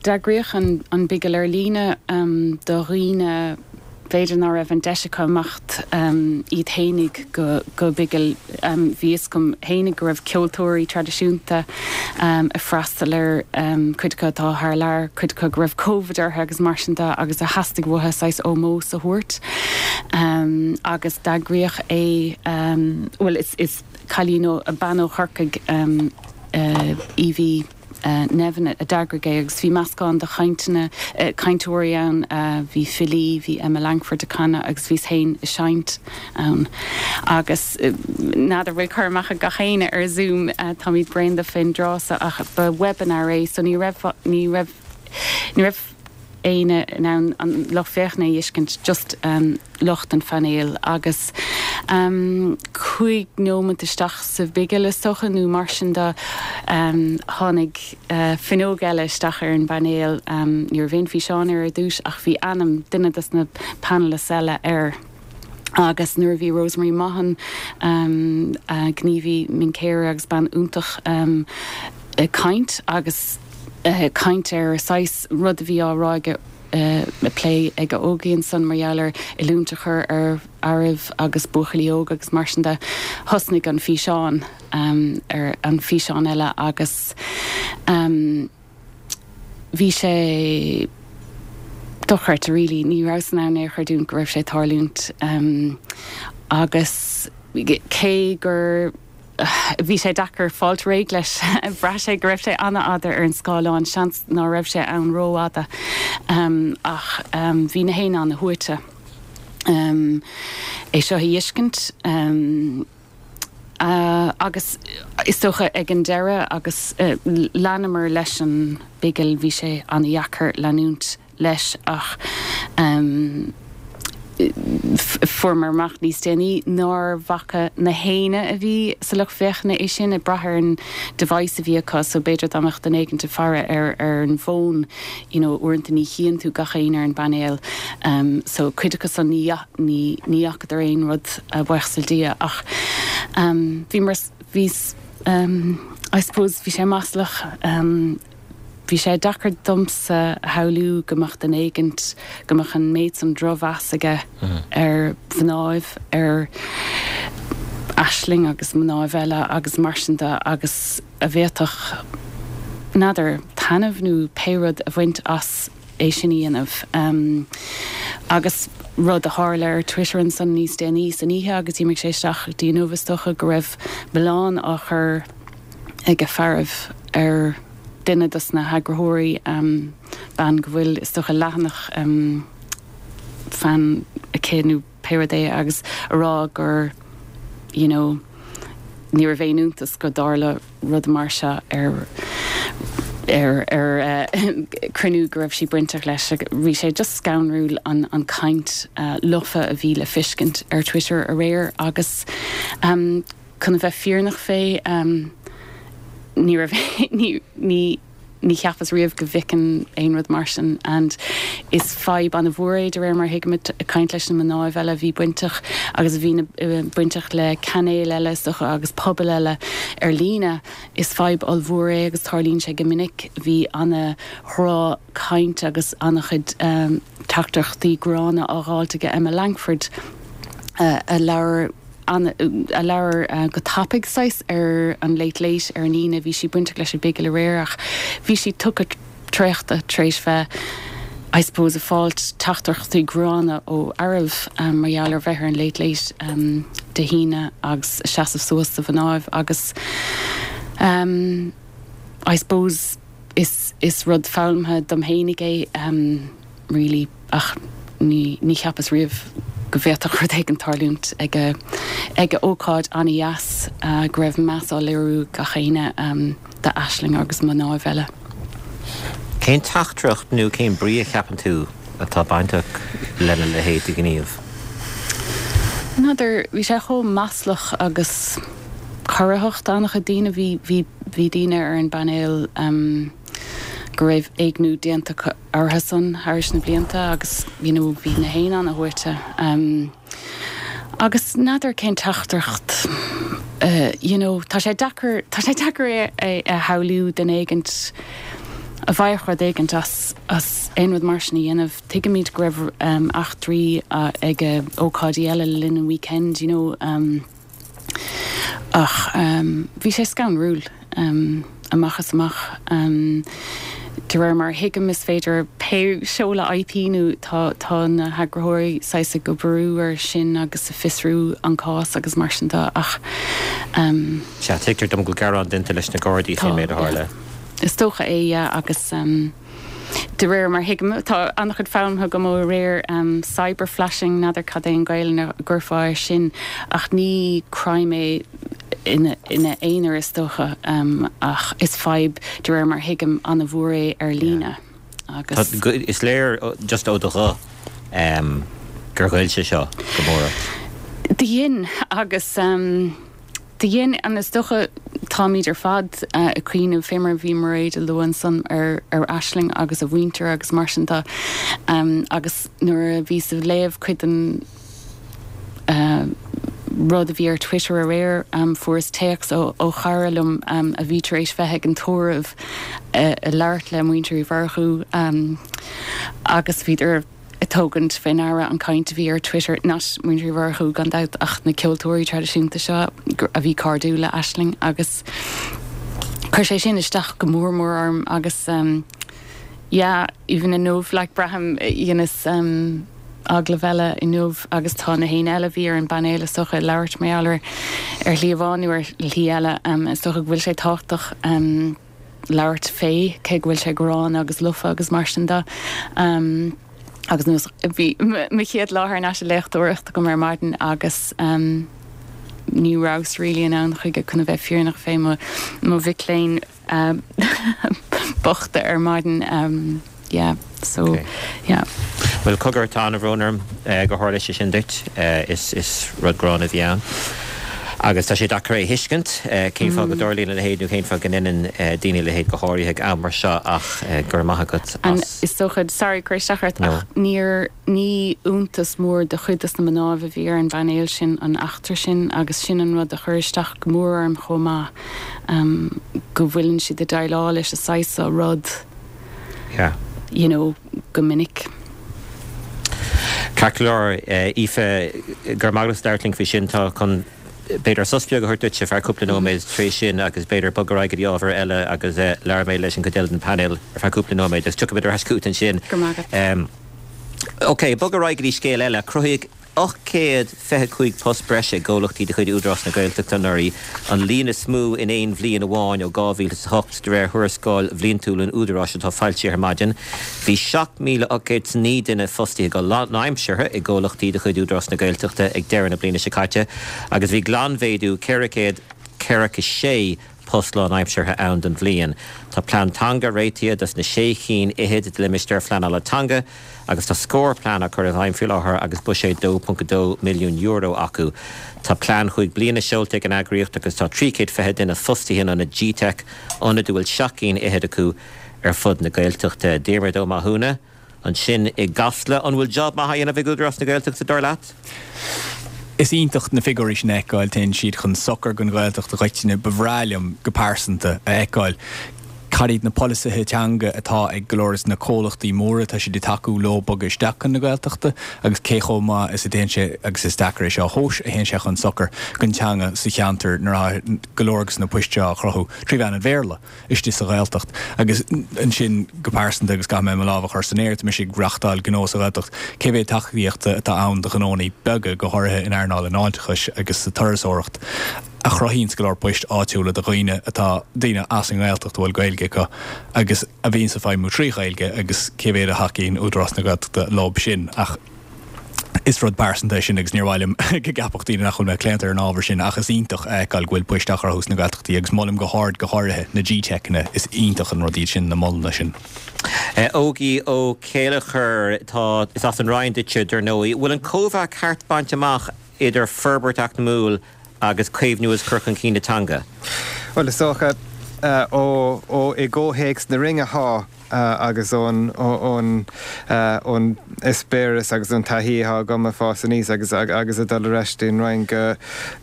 [SPEAKER 3] d'eagraíodh an bigil ar líne do dhaoine, b'fhéidir ná raibh an deis acu imeacht iad fhéinig go bigil. Bhí fhios agam fhéinig go raibh ceoltóirí traidisiúnta ag freastal air, cuid acu atá thar lear, cuid acu go raibh Covid orthu agus mar sin de agus a theastaigh uathu saghas ómós a thabhairt. Agus d'eagraíodh é, bhuel is cailín ó, bean ó Chorcaigh, Evie, Nevin a d'eagraigh é agus bhí meascán de chainteanna, cainteoirí ann, bhí filí, bhí Emma Langford ag canadh agus bhíos féin ag seinnt ann. Agus n'fheadar bhfuil cur amach ag gach éinne ar Zoom, táimid bréan de fén dtráth so ach ba webinar é so ní raibh, ní raibh, ní raibh éinne in ann an lucht féachana a fheiscint, just lucht an phainéil agus 5 nóimeant isteach sa bhigil is dócha nó mar sin de tháinig fuinneog eile isteach ar an bpainéal. Ní raibh aon físeán air ar dtús ach bhí ainm duine dos na panelists eile air agus nuair a bhí Rosemary Mahon, gníomhaí Mincéire agus bean iontach, ag caint agus ag caint ar saghas rud a bhí á rá aige, ag plé ag Ógie ansan mar gheall ar oiliúint a chur ar fhearaibh agus buachaillí óga agus mar sin de. Thosnaigh an físeán ar an físeán eile agus bhí sé dochreidte really. Ní rabhas in ann é a chreidiúint go raibh sé ag tarlúint agus cé gur Bhí sé deacair fáilt réidh leis. Bhraith sé go raibh sé an-fhada ar an scáileán, seans ná raibh sé ann rófhada ach bhí na héinne ana-shuaite é seo a fheiscint agus is dócha ag an deireadh agus leanamar leis an bigil, bhí sé ana-dheacair leanúint. leis ach fuaireamar amach níos déanaí nár bhfaca na héinne a bhí sa lucht féachana é sin, ag brath ar an device a bhí acu so b'fhéidir dá mbeadh duine éigint ag faire ar ar an bhfón you know uaireanta ní chíonn tú gach éinne ar an bpainéal so cuid acu san ní ní ní fhacadar aon rud buíochas le Dia ach bhí mar bhí I suppose bhí sé maslach. Bhí sé deacair domsa a shamhlú go mbeadh duine éigint, go mbeadh an méid san drochmheas aige ar mhnáibh, ar Aisling agus mnáibh eile agus mar sin de agus a bhféadfadh, n'fheadar, taitneamh nó pé rud a bhaint as é sin a dhéanamh. Agus rud a tharla ar Twitter ansan níos déanaí san oíche agus d'imigh sé isteach go dtí inniu is dócha go raibh milleán á chur ag fearaibh ar duine dos na heagraitheoirí, bean go bhfuil, is dócha, leathanach fan aici nó pé rud é agus a rá gur you know ní raibh aon iontas go dtarla rud mar seo ar ar ar cruinniú go raibh sí bainteach leis. Bhí sé just scanrúil an an caint lofa a bhí le feiscint ar Twitter aréir agus. Chun a bheith fírinneach fé, ní raibh, ní, ní, ní cheapas riamh go bhfeicfinn aon rud mar sin and is fadhb ana-mhór é de réir mar a thuigim, ag caint leis na mnáibh eile a bhí bainteach agus a bhí bainteach le cainéil eile is dócha agus pobail eile ar líne. Is fadhb ollmhór é agus tarlaíonn sé go minic. Bhí ana-dhroch-chaint agus ana-chuid teachtaireachtaí gránna á dháilt aige Emma Langford a labhair a labhair go tapaidh saghas ar an Late Late ar an Aoine. Bhí sí bainteach leis an bPigil aréir ach bhí sí tugtha traochta tar éis bheith I suppose ag fáilt teachtaireachtaí gránna ó fhearaibh mar gheall ar bheith ar an Late Late Dé hAoine agus seasamh suas do mhnáibh agus I suppose is is rud foghlamtha dom fhéinig é really ach ní ní cheapas riamh go bhféadfadh rud éigin tarlúint ag ag ócáid ana-dheas go raibh meas á léiriú gach éinne d'Aisling agus mnáibh eile.
[SPEAKER 1] Cén teachtaireacht nó cén brí a cheapann tú atá bainteach lena leithéid de ghníomh?
[SPEAKER 3] N'fheadar, bhí sé chomh maslach agus corraitheach d'an-chuid daoine. Bhí, bhí, bhí daoine ar an bpainéal go raibh éigniú déanta acu orthu-san thairis na blianta agus you know bhí na héinne ana-shuaite. Agus n'fheadar cén teachtaireacht you know tá sé deacair, tá sé deacair é a shamhlú duine éigint a bhfaigheadh rud éigint as, as aon rud mar sin a dhéanamh. Tuigimid go raibh eachtraí ag ócáidí eile le linn an weekend you know ach bhí sé scanrúil amach is amach. De réir mar a thuigim is féidir pé seoladh IP nó tá tá na heagraitheoirí saghas ag oibriú ar sin agus ag fiosrú an cás agus mar sin de ach.
[SPEAKER 1] Sea, tuigtear dom go bhfuil gearán déanta leis na Gardaí faoin méid a tharla.
[SPEAKER 3] Is dócha é, yeah, agus. De réir mar thuigim, tá an-chuid foghlamtha agam ó aréir, cyberflashing, n'fheadar cad é an Ghaelainn a gcuirfeá air sin, ach ní crime é ina aonar is dócha, ach is fadhb, de réir mar thuigim, an-mhór é ar líne
[SPEAKER 1] agus. Is léir just ó do ghuth gur ghoill sé seo go mór
[SPEAKER 3] ort. Do dhein, agus. Do dhein, and is dócha táimíd ar fad ag cuimhneamh, fé mar a bhí Mairéad a lua ansan, ar ar Aisling agus a mhuintir agus mar sin de. Agus nuair a bhíos ag léamh cuid den rud a bhí ar Twitter aréir, fuaireas téacs ó ó chara liom a bhí tar éis bheith ag an tórramh ag labhairt le muintir Uí Mhurchú agus bhíodar ag tógaint fé ndeara an chaint a bhí ar Twitter, not muintir Uí Mhurchú gan dabht ach na ceoltóirí traidisiúnta seo a bhí cairdiúil le Aisling agus chuir sé sin isteach go mór mór orm agus yeah even inniu like braithim dheineas agallamh eile inniu agus tá na héinne eile a bhí ar an bpainéal is dócha ag labhairt mar gheall ar ar shlí amháin nó ar shlí eile is dócha go bhfuil sé tábhachtach labhairt fé, cé go bhfuil sé gránna agus lofa agus mar sin de. Agus nós, bhí mo chéad lá thar n-ais ag léachtóireacht agam ar maidin agus ní rabhas really in ann chuige chun a bheith fírinneach fé mo mhic léinn bochta ar maidin. Yeah, so,
[SPEAKER 1] Ok.
[SPEAKER 3] yeah.
[SPEAKER 1] Bhuel, cogar, tá an-bhrón orm gur tharla sé sin duit. Is rud gránna a bhí ann. Agus tá sé deacair é a thuiscint, cén fáth go dtarlaíonn a leithéid nó cén fáth go ndeineann daoine a leithéid go háirithe ag am mar seo ach go raibh maith agat as.
[SPEAKER 3] Is dócha, sorry cur isteach ort, ach níor, ní iontas mór do chuid dos na mnáibh a bhí ar an bpainéal sin an eachtra sin agus sin an rud a chuir isteach go mór orm chomh maith, go bhfuileann siad ag déileáil leis an saghas seo rud.
[SPEAKER 1] Yeah.
[SPEAKER 3] You know, go minic.
[SPEAKER 1] Ceart go leor, Aoife, go raibh maith agat as labhairt linn faoi sin. Tá chun b'fhéidir sos beag a thabhairt duit ar feadh cúpla nóiméad tar éis sin agus b'fhéidir bogadh ar aghaidh go dtí ábhar eile agus labhróidh mé leis an gcuid eile den phainéal ar feadh cúpla nóiméad agus tiocfaimid ar ais chugat ansin.
[SPEAKER 3] Go raibh maith agat.
[SPEAKER 1] Ok, bogadh ar aghaidh go dtí scéal eile. Cruthaíodh 825 post breise i gcomhlachtaí de chuid Údarás na Gaeltachta anuraidh, an líon is mó in aon bhliain amháin ó 2008, de réir thuarascáil bhliantúil an Údaráis atá foilsithe ar maidin. Bhí 7,809 duine fostaithe go lánaimseartha i gcomhlachtaí de chuid Údarás na Gaeltachta ag deireadh na bliana seo caite agus bhí glanmhéadú 446. post lánaimseartha ann don bhliain. Tá plean teanga réitithe dos na sé chinn fhichead de limistéir phleanála teanga agus tá scór plean á cur i bhfeidhm faoi láthair agus buiséad €2.2 milliún acu. Tá plean chúig bliana seolta ag an eagraíocht agus tá 320 duine fostaithe in ionad GTeic, ionad a bhfuil seacht gcinn fhichead acu ar fud na Gaeltachta. Diarmuid Ó Mathúna, ansin i gCasla. An bhfuil job maith á dhéanamh ag Údarás na Gaeltachta, dar leat?
[SPEAKER 5] Is iontach na figiúirí sin a fheiceáil, téann siad chun sochair don Ghaeltacht i gcoitinne. Ba bhreá liom go pearsanta a fheiceáil cad iad na polasaithe teanga atá ag go leor de na comhlachtaí móra atá siad ag tacú leo bogadh isteach chun na Gaeltachta agus cé chomh maith is a théann sé, agus is deacair é seo a thomhas, a théann sé chun sochair don teanga sa cheantar nuair atá go leor de na poist seo á chruthú trí mheán an Bhéarla. istigh sa Ghaeltacht. Agus ansin, go pearsanta, agus caithfidh mé mo lámh a chur san aer, tá mise ag reachtáil gnó sa Ghaeltacht, cé mhéad tacaíochta atá ann do ghnónnaí beaga, go háirithe in earnáil an fháilteachais agus sa turasóireacht, a chruthaíonns go leor poist áitiúla do dhaoine atá, daoine as an nGaeltacht a bhfuil Gaeilge acu agus a bhíonns ag feidhmiú trí Ghaeilge agus cé mhéad a thacaíonn Údarás na Gaeltachta leo sin. Ach is rud pearsanta é sin agus níor mhaith liom go gceapfadh daoine nach bhfuil mé claonta ar an ábhar sin ach is iontach a fheiceáil go bhfuil poist á chruthú sna Gaeltachtaí agus molaim go hard go háirithe na GTeiceanna, is iontach an rud iad sin, na molanna sin.
[SPEAKER 1] Ógie Ó Céilleachair, tá, is as an Rinn duitse dar ndóigh. Bhfuil an cóimheá ceart bainte amach idir forbairt eacnamúil agus caomhnú agus cur chun cinn na teanga?
[SPEAKER 4] Bhuel, is dócha, ó, ó, i gcomhthéacs na Rinne thá. agus ón ón eispéireas agus ón taithí atá agam ag fás aníos agus agus ag dul ar ais dtí'n Rinn go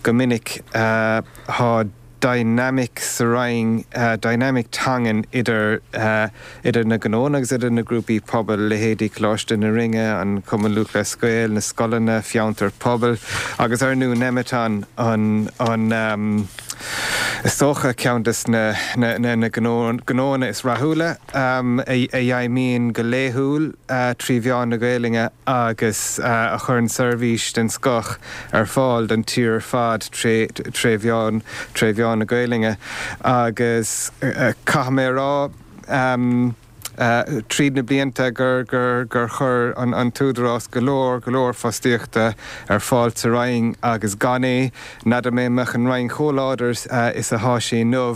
[SPEAKER 4] go minic tá dynamic sa Rinn, dynamic teangan idir idir na gnónna agus idir na grúpaí pobail, leithéidí Coláiste na Rinne, an Cumann Lúthchleas Gael, na scoileanna, fiontair pobail agus ar ndú Nemeton an an. Is dócha, ceann de na gnóanna is rathúla a fheidhmíonn go laethúil trí mheán na Gaelainne agus a chuireann seirbhís den scoth ar fáil don tír ar fad tré mheán na Gaelainne. Agus caithfidh mé a rá, tríd na blianta gur gur chuir an tÚdarás go leor, go leor fostaíochta ar fáil sa Rinn agus gan é, n'fheadar mé an mbeadh an Rinn chomh láidir is athá sí inniu.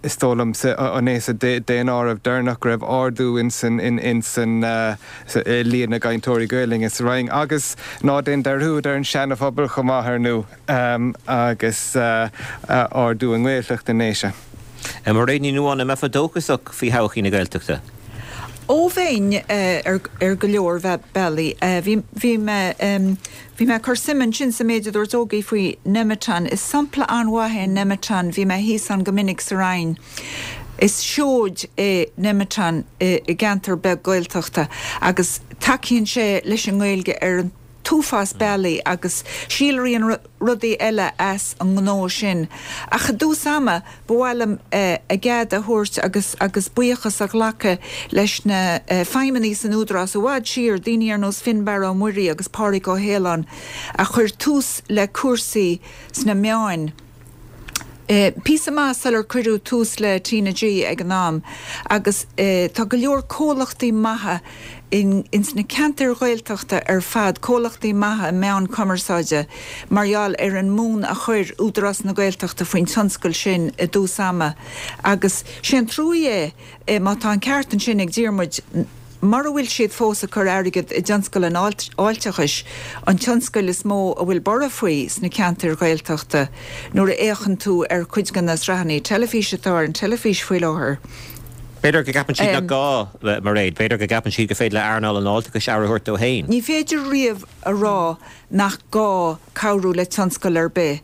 [SPEAKER 4] Is dóigh liom an é sa daonáireamh deireanach go raibh ardú ins an líon na gcainteoirí Gaelainne sa Rinn agus ná déan dearúd ar an Seana-Phobal chomh maith ar ndú agus ardú i nGaeltacht na nDéise.
[SPEAKER 1] Mairéad Ní Nuadháin, an mbeifeá dóchasach faoi thodhchaí na Gaeltachta?
[SPEAKER 2] Ó bheinn ar go leor bealaí. Bhí mé bhí mé ag cur suim ansin sa méid a dúirt Ógie faoi Nemeton. Is sampla an-mhaith é Nemeton. Bhí mé thíos ann go minic sa Rinn. Is seoid é Nemeton i gceantar beag Gaeltachta agus tacaíonn sé leis an nGaeilge ar an t-uafás bealaí agus síolraíonn rudaí eile as an ngnó sin. Ach i dtús ama, ba mhaith liom a gcead a thabhairt agus agus buíochas a ghlacadh leis na feidhmeannaigh san Údarás i bhfad siar, daoine ar nós Fionnbarra Ó Muirí agus Pádraig Ó hAoláin a chuir tús le cúrsaí sna meáin. Píosa maith sular cuireadh tús le TnaG ag an am agus tá go leor comhlachtaí maithe ins na ceantair Ghaeltachta ar fad, comhlachtaí maithe meán cumarsáide mar gheall ar an mbonn a chuir Údarás na Gaeltachta faoin tionscal sin i dtús ama agus sé an truaí é má tá an ceart ansin ag Diarmuid Mura bhfuil siad fós ag cur airgead i dtionscal an fháilteachais, an tionscal is mó a bhfuil borradh faoi sna ceantair Ghaeltachta, nuair a fhéachann tú ar chuid de na sraitheanna teilifíse atá ar an teilifís faoi láthair.
[SPEAKER 1] B'fhéidir go gceapann siad nach gá, Mairéad. B'fhéidir go gceapann siad gur féidir le earnáil an fháilteachais aire a thabhairt dó féin.
[SPEAKER 2] Ní féidir riamh a rá nach gá cabhrú le tionscal ar bith,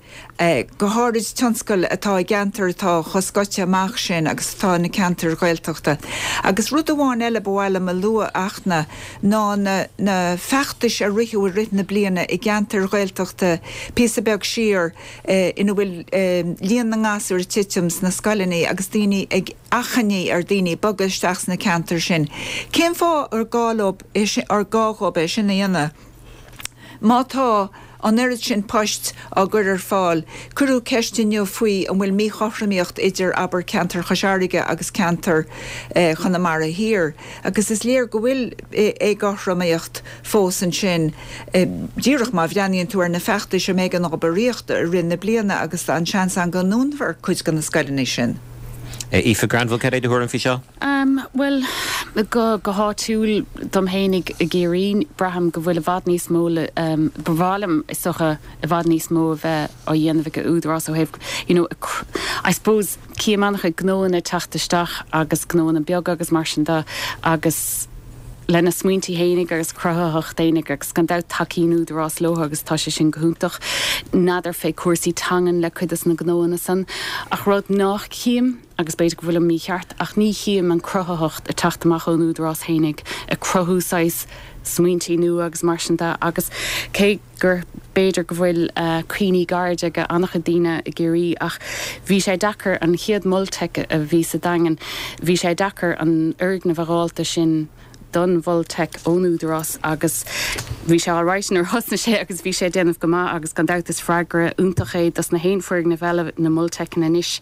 [SPEAKER 2] go háirid tionscail atá i gceantair atá chomh scoite amach sin agus atá na ceantair Ghaeltachta. Agus rud amháin eile ba mhaith liom a lua, Fhachtna, ná na na feachtais a ritheadh i rith na bliana i gceantair Ghaeltachta píosa beag siar ina bhfuil líon na ngasúr ag titim sna scoileanna agus daoine ag achainí ar daoine bogadh isteach sna ceantair sin. Cén fáth ar gá leo, ar gá dhóibh é sin a dhéanamh? Má tá. An oiread sin poist á gcur ar fáil. Cuireadh ceist inniu faoi an bhfuil míchothromaíocht idir, abair, ceantar Chois Fharraige agus ceantar Chonamara Thiar agus is léir go bhfuil éagothromaíocht fós ansin díreach má bhreathnaíonn tú ar na feachtais um éigean obair aíochta i rith na bliana agus tá an seans ann go ndúnfar cuid de na scoileanna sin.
[SPEAKER 1] Aoife Granville, cad é do thuairim faoi seo?
[SPEAKER 3] Bhuel, go go háitiúil dom fhéinig i gCiarraí, braithim go bhfuil i bhfad níos mó le, ba mhaith liom is dócha i bhfad níos mó a bheith á dhéanamh ag an Údarás ó thaobh, you know, I suppose, cím an-chuid gnóanna ag teacht isteach agus gnóanna beaga agus mar sin de agus lena smaointí fhéinig agus cruthaitheacht fhéinig agus gan dabht tacaíonn Údarás leo agus tá sé sin go hiontach. N'fheadar fé cúrsaí teangan le cuid des na gnóanna san ach rud nách cím agus b'fhéidir go bhfuilim mícheart ach ní chím an cruthaitheacht ag teacht amach ón Údarás fhéinig ag cruthú saghas smaointí nua agus mar sin de agus cé gur b'fhéidir go bhfuil cuimhní gairide ag an-chuid daoine i gCiarraí ach bhí sé deacair an chéad Mol Teic a bhí sa Daingean, bhí sé deacair an fhoirgneamh a dh'fháilt sin don Mhol Teic ón Údarás agus bhí sé alright nuair a thosnaigh sé agus bhí sé ag déanamh go maith agus gan dabht is freagra iontach é dos na haon foirgneamh eile na Mol Teiceanna anois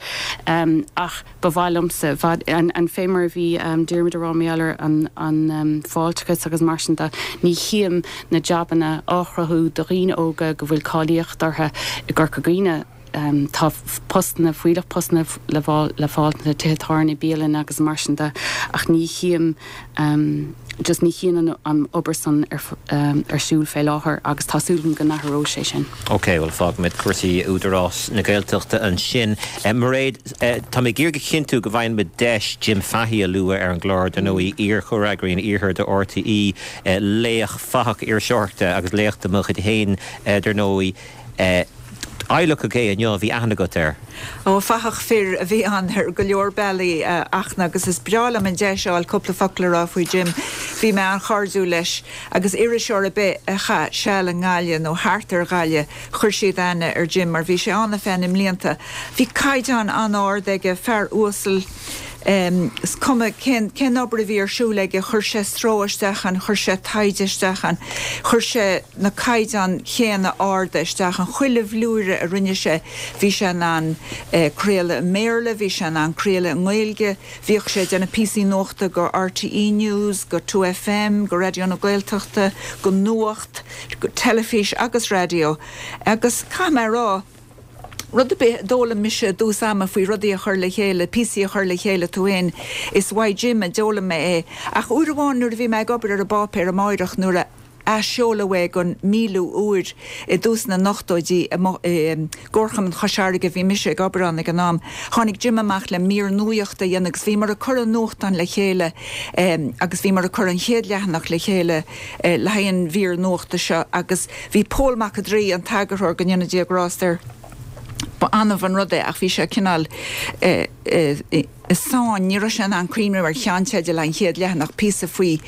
[SPEAKER 3] ach Ba mhaith liomsa, an fé mar a bhí Diarmuid a rá mar gheall ar an fáilteachas agus mar sin de, ní chím na jabanna á chruthú do dhaoine óga go bhfuil cáilíocht orthu i gCorca Dhuibhne. Tá postanna, fuílleach postanna le fáil sna tithe tábhairne, bialanna agus mar sin de ach ní chím, just ní chím an obair san ar siúl fé láthair agus tá súil agam go n-athróidh sé sin.
[SPEAKER 1] Ok, bhuel fágfaimid cúrsaí Údarás na Gaeltachta ansin. Mairéad, tá mé ag iarraidh a chinntiú go bhfaigheann muid deis Jim Fahey a lua ar an gclár, dar ndóigh, iar-chomhfhreagraí an Iarthair do RTÉ, laoch, fathach iriseoireachta agus laoch de mo chuid féin, dar ndóigh. Adhlacadh é inniu, bhí aithne agat air.
[SPEAKER 2] Ó, fathach fir a bhí ann ar go leor bealaí, a Fhachtna, agus is breá liom an deis a fháil cúpla focal a rá faoi Jim. Bhí mé an-chairdiúil leis, agus iriseoir ar bith a chaith seal i nGaillimh nó thart ar Ghaillimh, chuir siad aithne ar Jim mar bhí sé ann ar feadh na mblianta. Bhí caighdeán an-ard aige, fear uasal, is cuma cén cén obair a bhí ar siúl aige, chuir sé stró isteach ann, chuir sé taighde isteach ann, chuir sé na caighdeáin chéanna arda isteach ann. Chuile bhlúire a rinne sé, bhí sé in ann craoladh i mBéarla, bhí sé in ann craoladh i nGaeilge, bhíodh sé ag déanamh píosaí nuachta go RTÉ News, go 2FM, go Raidió na Gaeltachta, go Nuacht, go teilifís agus raidió. Agus caithfidh mé a rá, rud ar bith a d'fhoghlaim mise i dtús ama faoi rudaí a chur le chéile, píosaí a chur le chéile tú fhéin, is uaidh Jim a d'fhoghlaim mé é. Ach uair amháin nuair a bhí mé ag obair ar an bpáipéar Amárach nuair a athsheoladh é don míliú uair i dtús na n-ochtóidí i gComharchumann Chois Fharraige, bhí mise ag obair ann ag an am, tháinig Jim amach le mír nuachta a dhéanamh agus bhíomar ag cur an nuachtán le chéile agus bhíomar ag cur an chéad leathanach le chéile le haghaidh an mhír nuachta seo agus bhí Pól Mac an Draoi, an t-eagarthóir, go ndéana Dia grást air, ba annamh an rud é ach bhí sé cineál i sáinn, ní raibh sé in ann cuimhneamh ar cheannteideal an chéad leathanach, píosa faoi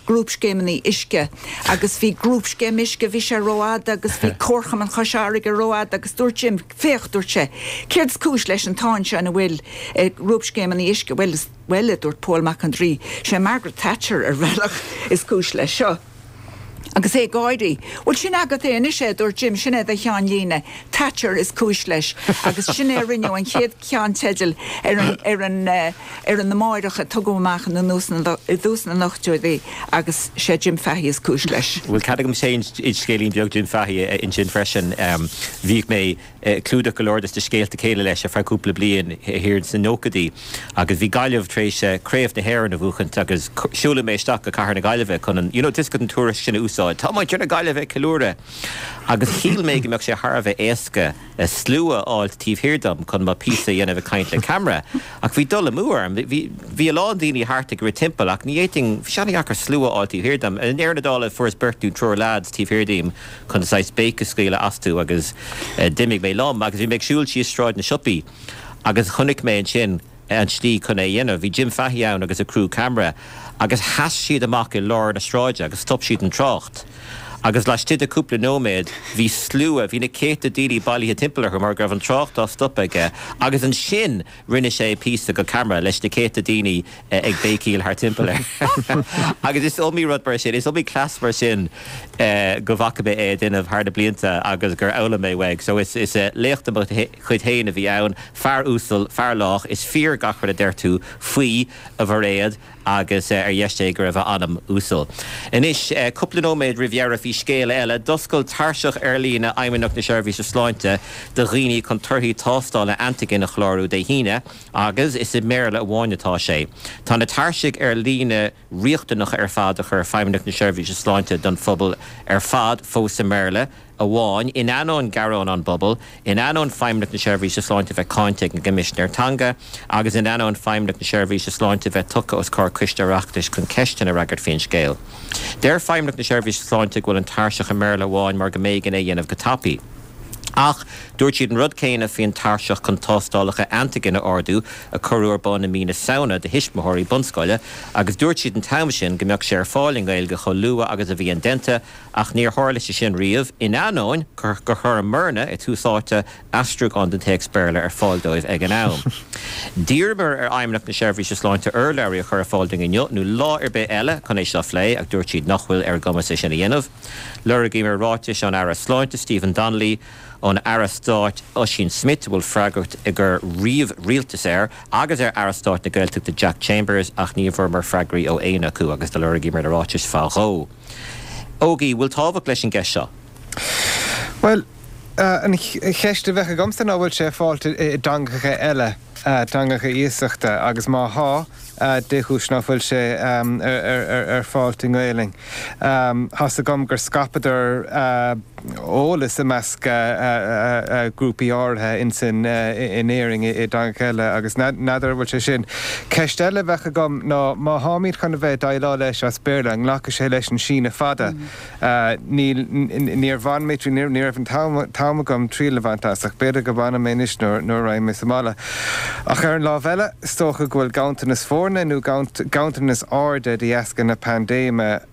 [SPEAKER 2] grúpscéimeanna uisce agus bhí grúpscéim uisce, bhí sé rófhada agus bhí Comharchumann Chois Fharraige rófhada agus dúirt Jim, féach, dúirt sé, céard is cúis leis an tsáinn seo ina bhfuil grúpscéimeanna uisce, bhuel, bhuel, a dúirt Pól Mac an Draoi, sé Margaret Thatcher ar bhealach is cúis leis seo. Agus é ag gáirí. Bhuel, sin agat é anois é, a dúirt Jim, sin é do cheannlíne. Thatcher is cúis leis. Agus sin é a rinneadh an chéad cheannteideal ar an, ar an, ar an Amárach a tugadh amach in i dtús na n-ochtóidí agus sé Jim Fahey is cúis leis.
[SPEAKER 1] Bhuel, cead agam féin scéilín beag Jim Fahey a insint freisin. Bhíodh mé ag clúdach go leor de na scéalta céille leis ar feadh cúpla bliain thiar sna nóchaidí agus bhí Gaillimh tar éis Craobh na hÉireann a bhuachaint agus siúladh mé isteach go Cathair na Gaillimhe chun an, you know, tá a fhios agat an tuairisc sin a úsáid. Tá muintir na Gaillimhe ag ceiliúradh! Agus shíl mé go mbeadh sé thar a bheith éasca slua a fháilt taobh thiar dom chun mo phíosa a dhéanamh ag caint le ceamara ach bhí dul amú orm. Bhí, bhí a lán daoine thart ag rith timpeall ach ní fhéadfainn, bhí sé an-dheacair slua a fháil taobh thiar dom. I ndeireadh na dála fuaireas beirt nó triúr leaids taobh thiar díom chun saghas béic a scaoileadh astu agus d'imigh mé liom agus bhí mé ag siúl síos Sráid na Siopaí agus chonaic mé ansin an tslí chun é a dhéanamh. Bhí Jim Fahey ann agus a criú ceamara agus sheas siad amach i lár na sráide agus stop siad an trácht. Agus laistigh de cúpla nóiméad bhí slua, bhí na céadta daoine bailithe timpeall orthu mar go raibh an trácht á stopadh aige agus ansin rinne sé píosa go ceamara leis na céadta daoine ag béicíl thart timpeall air. Agus is iomaí rud mar sin, is iomaí cleas mar sin go bhfaca mé é ag déanamh thar na blianta agus gur fhoghlaim mé uaidh. So is laoch de mo chuid féin a bhí ann, fear uasal, fear lách, is fíor gach rud a deir tú faoi, a Mhairéad. agus ar dheis Dé go raibh a anam uasal. Anois, cúpla nóiméad roimh dheireadh, bhí scéal eile. D'oscail tairseach ar líne Fheidhmeannacht na Seirbhíse Sláinte do dhaoine chun torthaí tástála antaigin a chlárú Dé hAoine agus is i mBéarla amháin atá sé. Tá na tairsigh ar líne riachtanacha ar fad a chuir Feidhmeannacht na Seirbhíse Sláinte don phobal ar fad fós i mBéarla. amháin, in ainneoin gearán ón bpobal, in ainneoin Feidhmeannacht na Seirbhíse Sláinte bheith cáinte ag an gCoimisinéir Teanga agus in ainneoin Feidhmeannacht na Seirbhíse Sláinte bheith tugtha os comhair Coiste Oireachtais chun ceisteanna a fhreagairt faoin scéal. Deir Feidhmeannacht na Seirbhíse Sláinte go bhfuil an tairseach i mBéarla amháin mar go mb'éigean é a dhéanamh go tapaidh. Ach dúirt siad an rud céanna faoin tairseach chun tástálacha antaigin a ordú a cuireadh ar bun i mí na Samhna do thuismitheoirí bunscoile agus dúirt siad an t-am sin go mbeadh sé ar fáil i nGaeilge chomh luath agus a bhí indéanta Ach níor tharla sé sin riamh, in ainneoin gur chuir Morna i dtús áite aistriúchán den téacs Béarla ar fáil dóibh ag an am. D'iarramar ar Fheidhmeannacht na Seirbhíse Sláinte urlabhraí a chur ar fáil dúinn inniu nó lá ar bith eile chun é seo a phlé ach dúirt siad nach bhfuil ar a gcumas é sin a dhéanamh. Lorgaíomar ráitis ón Aire Sláinte Stephen Donnelly, ón Aire Stáit Ossian Smyth, a bhfuil freagracht i gcur ríomh-rialtas air, agus ar Aire Stáit na Gaeltachta Jack Chambers ach ní bhfuaireamar freagraí ó éinne acu agus do lorgaíomar na ráitis fá dhó. Ógie, bhfuil tábhacht leis an gceist seo?
[SPEAKER 4] Bhuel, an cheist a bheadh agamsa ná bhfuil sé ar fáil i dteangacha eile, teangacha iasachta, agus má thá, dé chúis ná fuil sé ar fáilt i nGaelainn? Thá's agam gur scaipeadar eolas i measc grúpaí áirithe insan in Éirinn i dteangacha eile agus n'fheadar an bhfuil sé sin. Ceist eile a bheadh agam ná má tháimid chun a bheith ag déileáil leis as Béarla, an nglacfaidh sé leis an síneadh fada? Níl, níor bhain mé, ní raibh an t-am agam triail a bhaint as ach b'fhéidir go mbainfidh mé anois nuair a raghaidh mé sa mbaile. Ach ar an lámh eile, is dócha go bhfuil ganntanas foirne nó ganntanas airde de dheasca na paindéime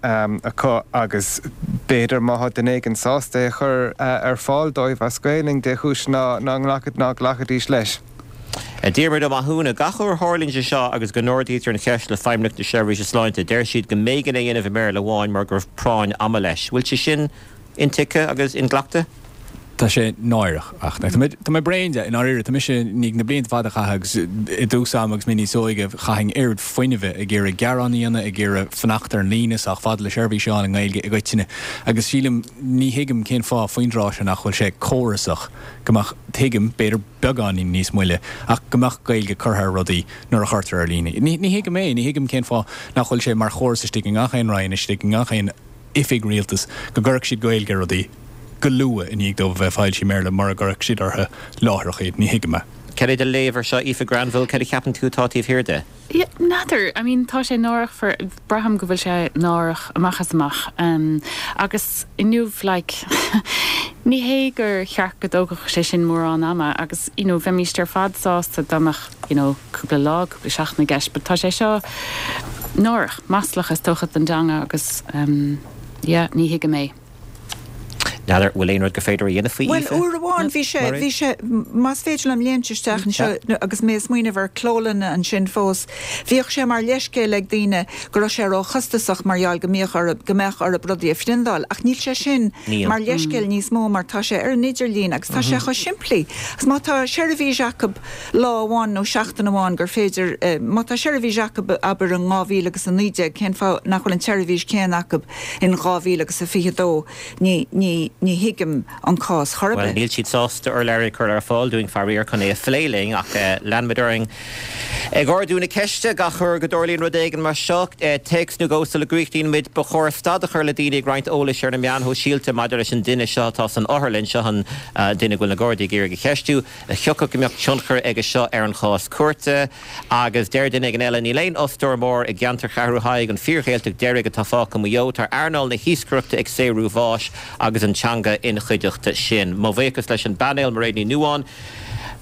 [SPEAKER 4] acu agus b'fhéidir má thá duine éigin sásta é a chur ar fáil dóibh as Gaelainn, dé chúis ná nglacfaidís leis.
[SPEAKER 1] Diarmuid Ó Mathúna, Gach uair a tharlaíonn sé seo agus go n-ardaítear an cheist le Feidhmeannacht na Seirbhíse Sláinte, deir siad go mb'éigean é a dhéanamh i mBéarla amháin mar go raibh práinn ama leis. Bhfuil sé sin intuigthe agus inghlactha?
[SPEAKER 5] Tá sé náireach ach tá mé tá mé bréan de i ndáiríre. Tá mise i ndiaidh na blianta fada a chaitheamh agus i dtús ama agus mé níos óige chaithinn oiread fuinnimh ag iarraidh gearán a dhéanamh, ag iarraidh fanacht ar an líne sách fada le seirbhís a fháil i nGaeilge i gcoitinne agus sílim ní thuigim cén fáth faoin dtráth seo nach bhfuil sé córasach go mbeadh, tuigim, b'fhéidir beagáinín níos moille ach go mbeadh Gaeilge curtha ar rudaí nuair a chuirtear ar líne. Ní thuigim é, ní thuigim cén fáth nach bhfuil sé mar chóras istigh i ngach aon roinn, istigh i ngach aon oifig rialtais go gcuirfeadh siad Gaeilge ar rudaí go luath i ndiaidh dóibh a bheith foilsithe i mBéarla mura gcuirfeadh siad orthu láithreach iad. Ní thuigim é.
[SPEAKER 1] Cad é do léamh ar seo, Aoife Granville? Cad a cheapann tú atá taobh thiar de?
[SPEAKER 3] Yeah, n'fheadar. I mean, tá sé náireach for, braithim go bhfuil sé náireach amach is amach. Agus inniu, like, ní hé gur cheart go dtógfadh sé sin mórán ama agus, you know, bheimíst ar fad sásta dá mbeadh, you know, cúpla lá, cúpla seachtain i gceist, but tá sé seo náireach, maslach is dócha don dteanga agus, yeah, ní thuigim é.
[SPEAKER 1] N'fheadar bhfuil aon rud gur féidir a dhéanamh faoi,
[SPEAKER 2] Bhuel, uair amháin bhí sé, bhí sé, más féidir liom léimt isteach anseo agus mé ag smaoineamh ar clólanna ansin fós, bhíodh sé mar leithscéal ag daoine go raibh sé róchostasach mar gheall go mbíodh orthu, go mbeadh orthu rudaí a phriondáil. Ach níl sé sin mar leithscéal níos mó mar tá sé ar an idirlíon agus tá sé chomh simplí. Agus má tá seirbhís acu lá amháin nó seachtain amháin gur féidir, má tá seirbhís acu abair in 2019, cén fáth nach bhfuil an tseirbhís chéanna acu in 2022, ní, ní, ní thuigim an cás chor ar
[SPEAKER 1] Bhuel, bith. níl siad sásta urlabhraí a chur ar fáil dúinn, faraor, chun é a phlé linn, ach leanfaimid orainn ag ardú na ceiste gach uair go dtarlaíonn rud éigin mar seo. Téacs nó dhó sula gcríochnaíonn muid, ba chóir stad a chur le daoine ag roinnt eolais ar na meáin shóisialta maidir leis an duine seo atá san otharlann, seo an duine go bhfuil na Gardaí ag iarraidh a cheistiú. Thiocfadh go mbeadh tionchar aige seo ar an chás cúirte. Agus deir duine éigin eile, Níl aon fhostóir mór i gceantar Cheathrú Thaidhg, an fíor-Ghaeltacht deiridh atá fágtha i Maigh Eo. Tá earnáil na hiascaireachta ag saothrú bháis agus an teanga ina chuideachta sin. Mo bhuíochas leis an bpainéal, Mairéad Ní Nuadháin.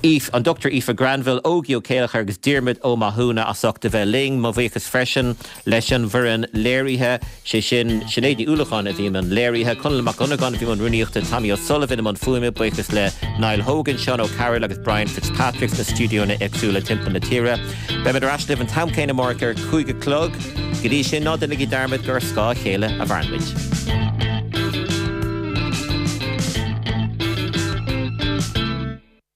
[SPEAKER 1] Aoife, an Dr Aoife Granville, Ógie Ó Céilleachair agus Diarmuid Ó Mathúna as ucht a bheith linn. Mo bhuíochas freisin leis an bhfoireann léirithe, sé sin Sinéad Ní Uallacháin a bhí i mbun léirithe, Conall Mac Dhonnagáin a bhí i mbun rúnaíochta, Tommy O'Sullivan i mbun fuaime, buíochas le Niall Hogan, Seán O'Carroll agus Brian Fitzpatrick sna stiúideonna éagsúla timpeall na tíre. Beimid ar ais libh an t-am céanna amárach ar a 5 a chlog. Go dtí sin, ná déanaigí dearmad gur ar scáth a chéile a mhaireann muid.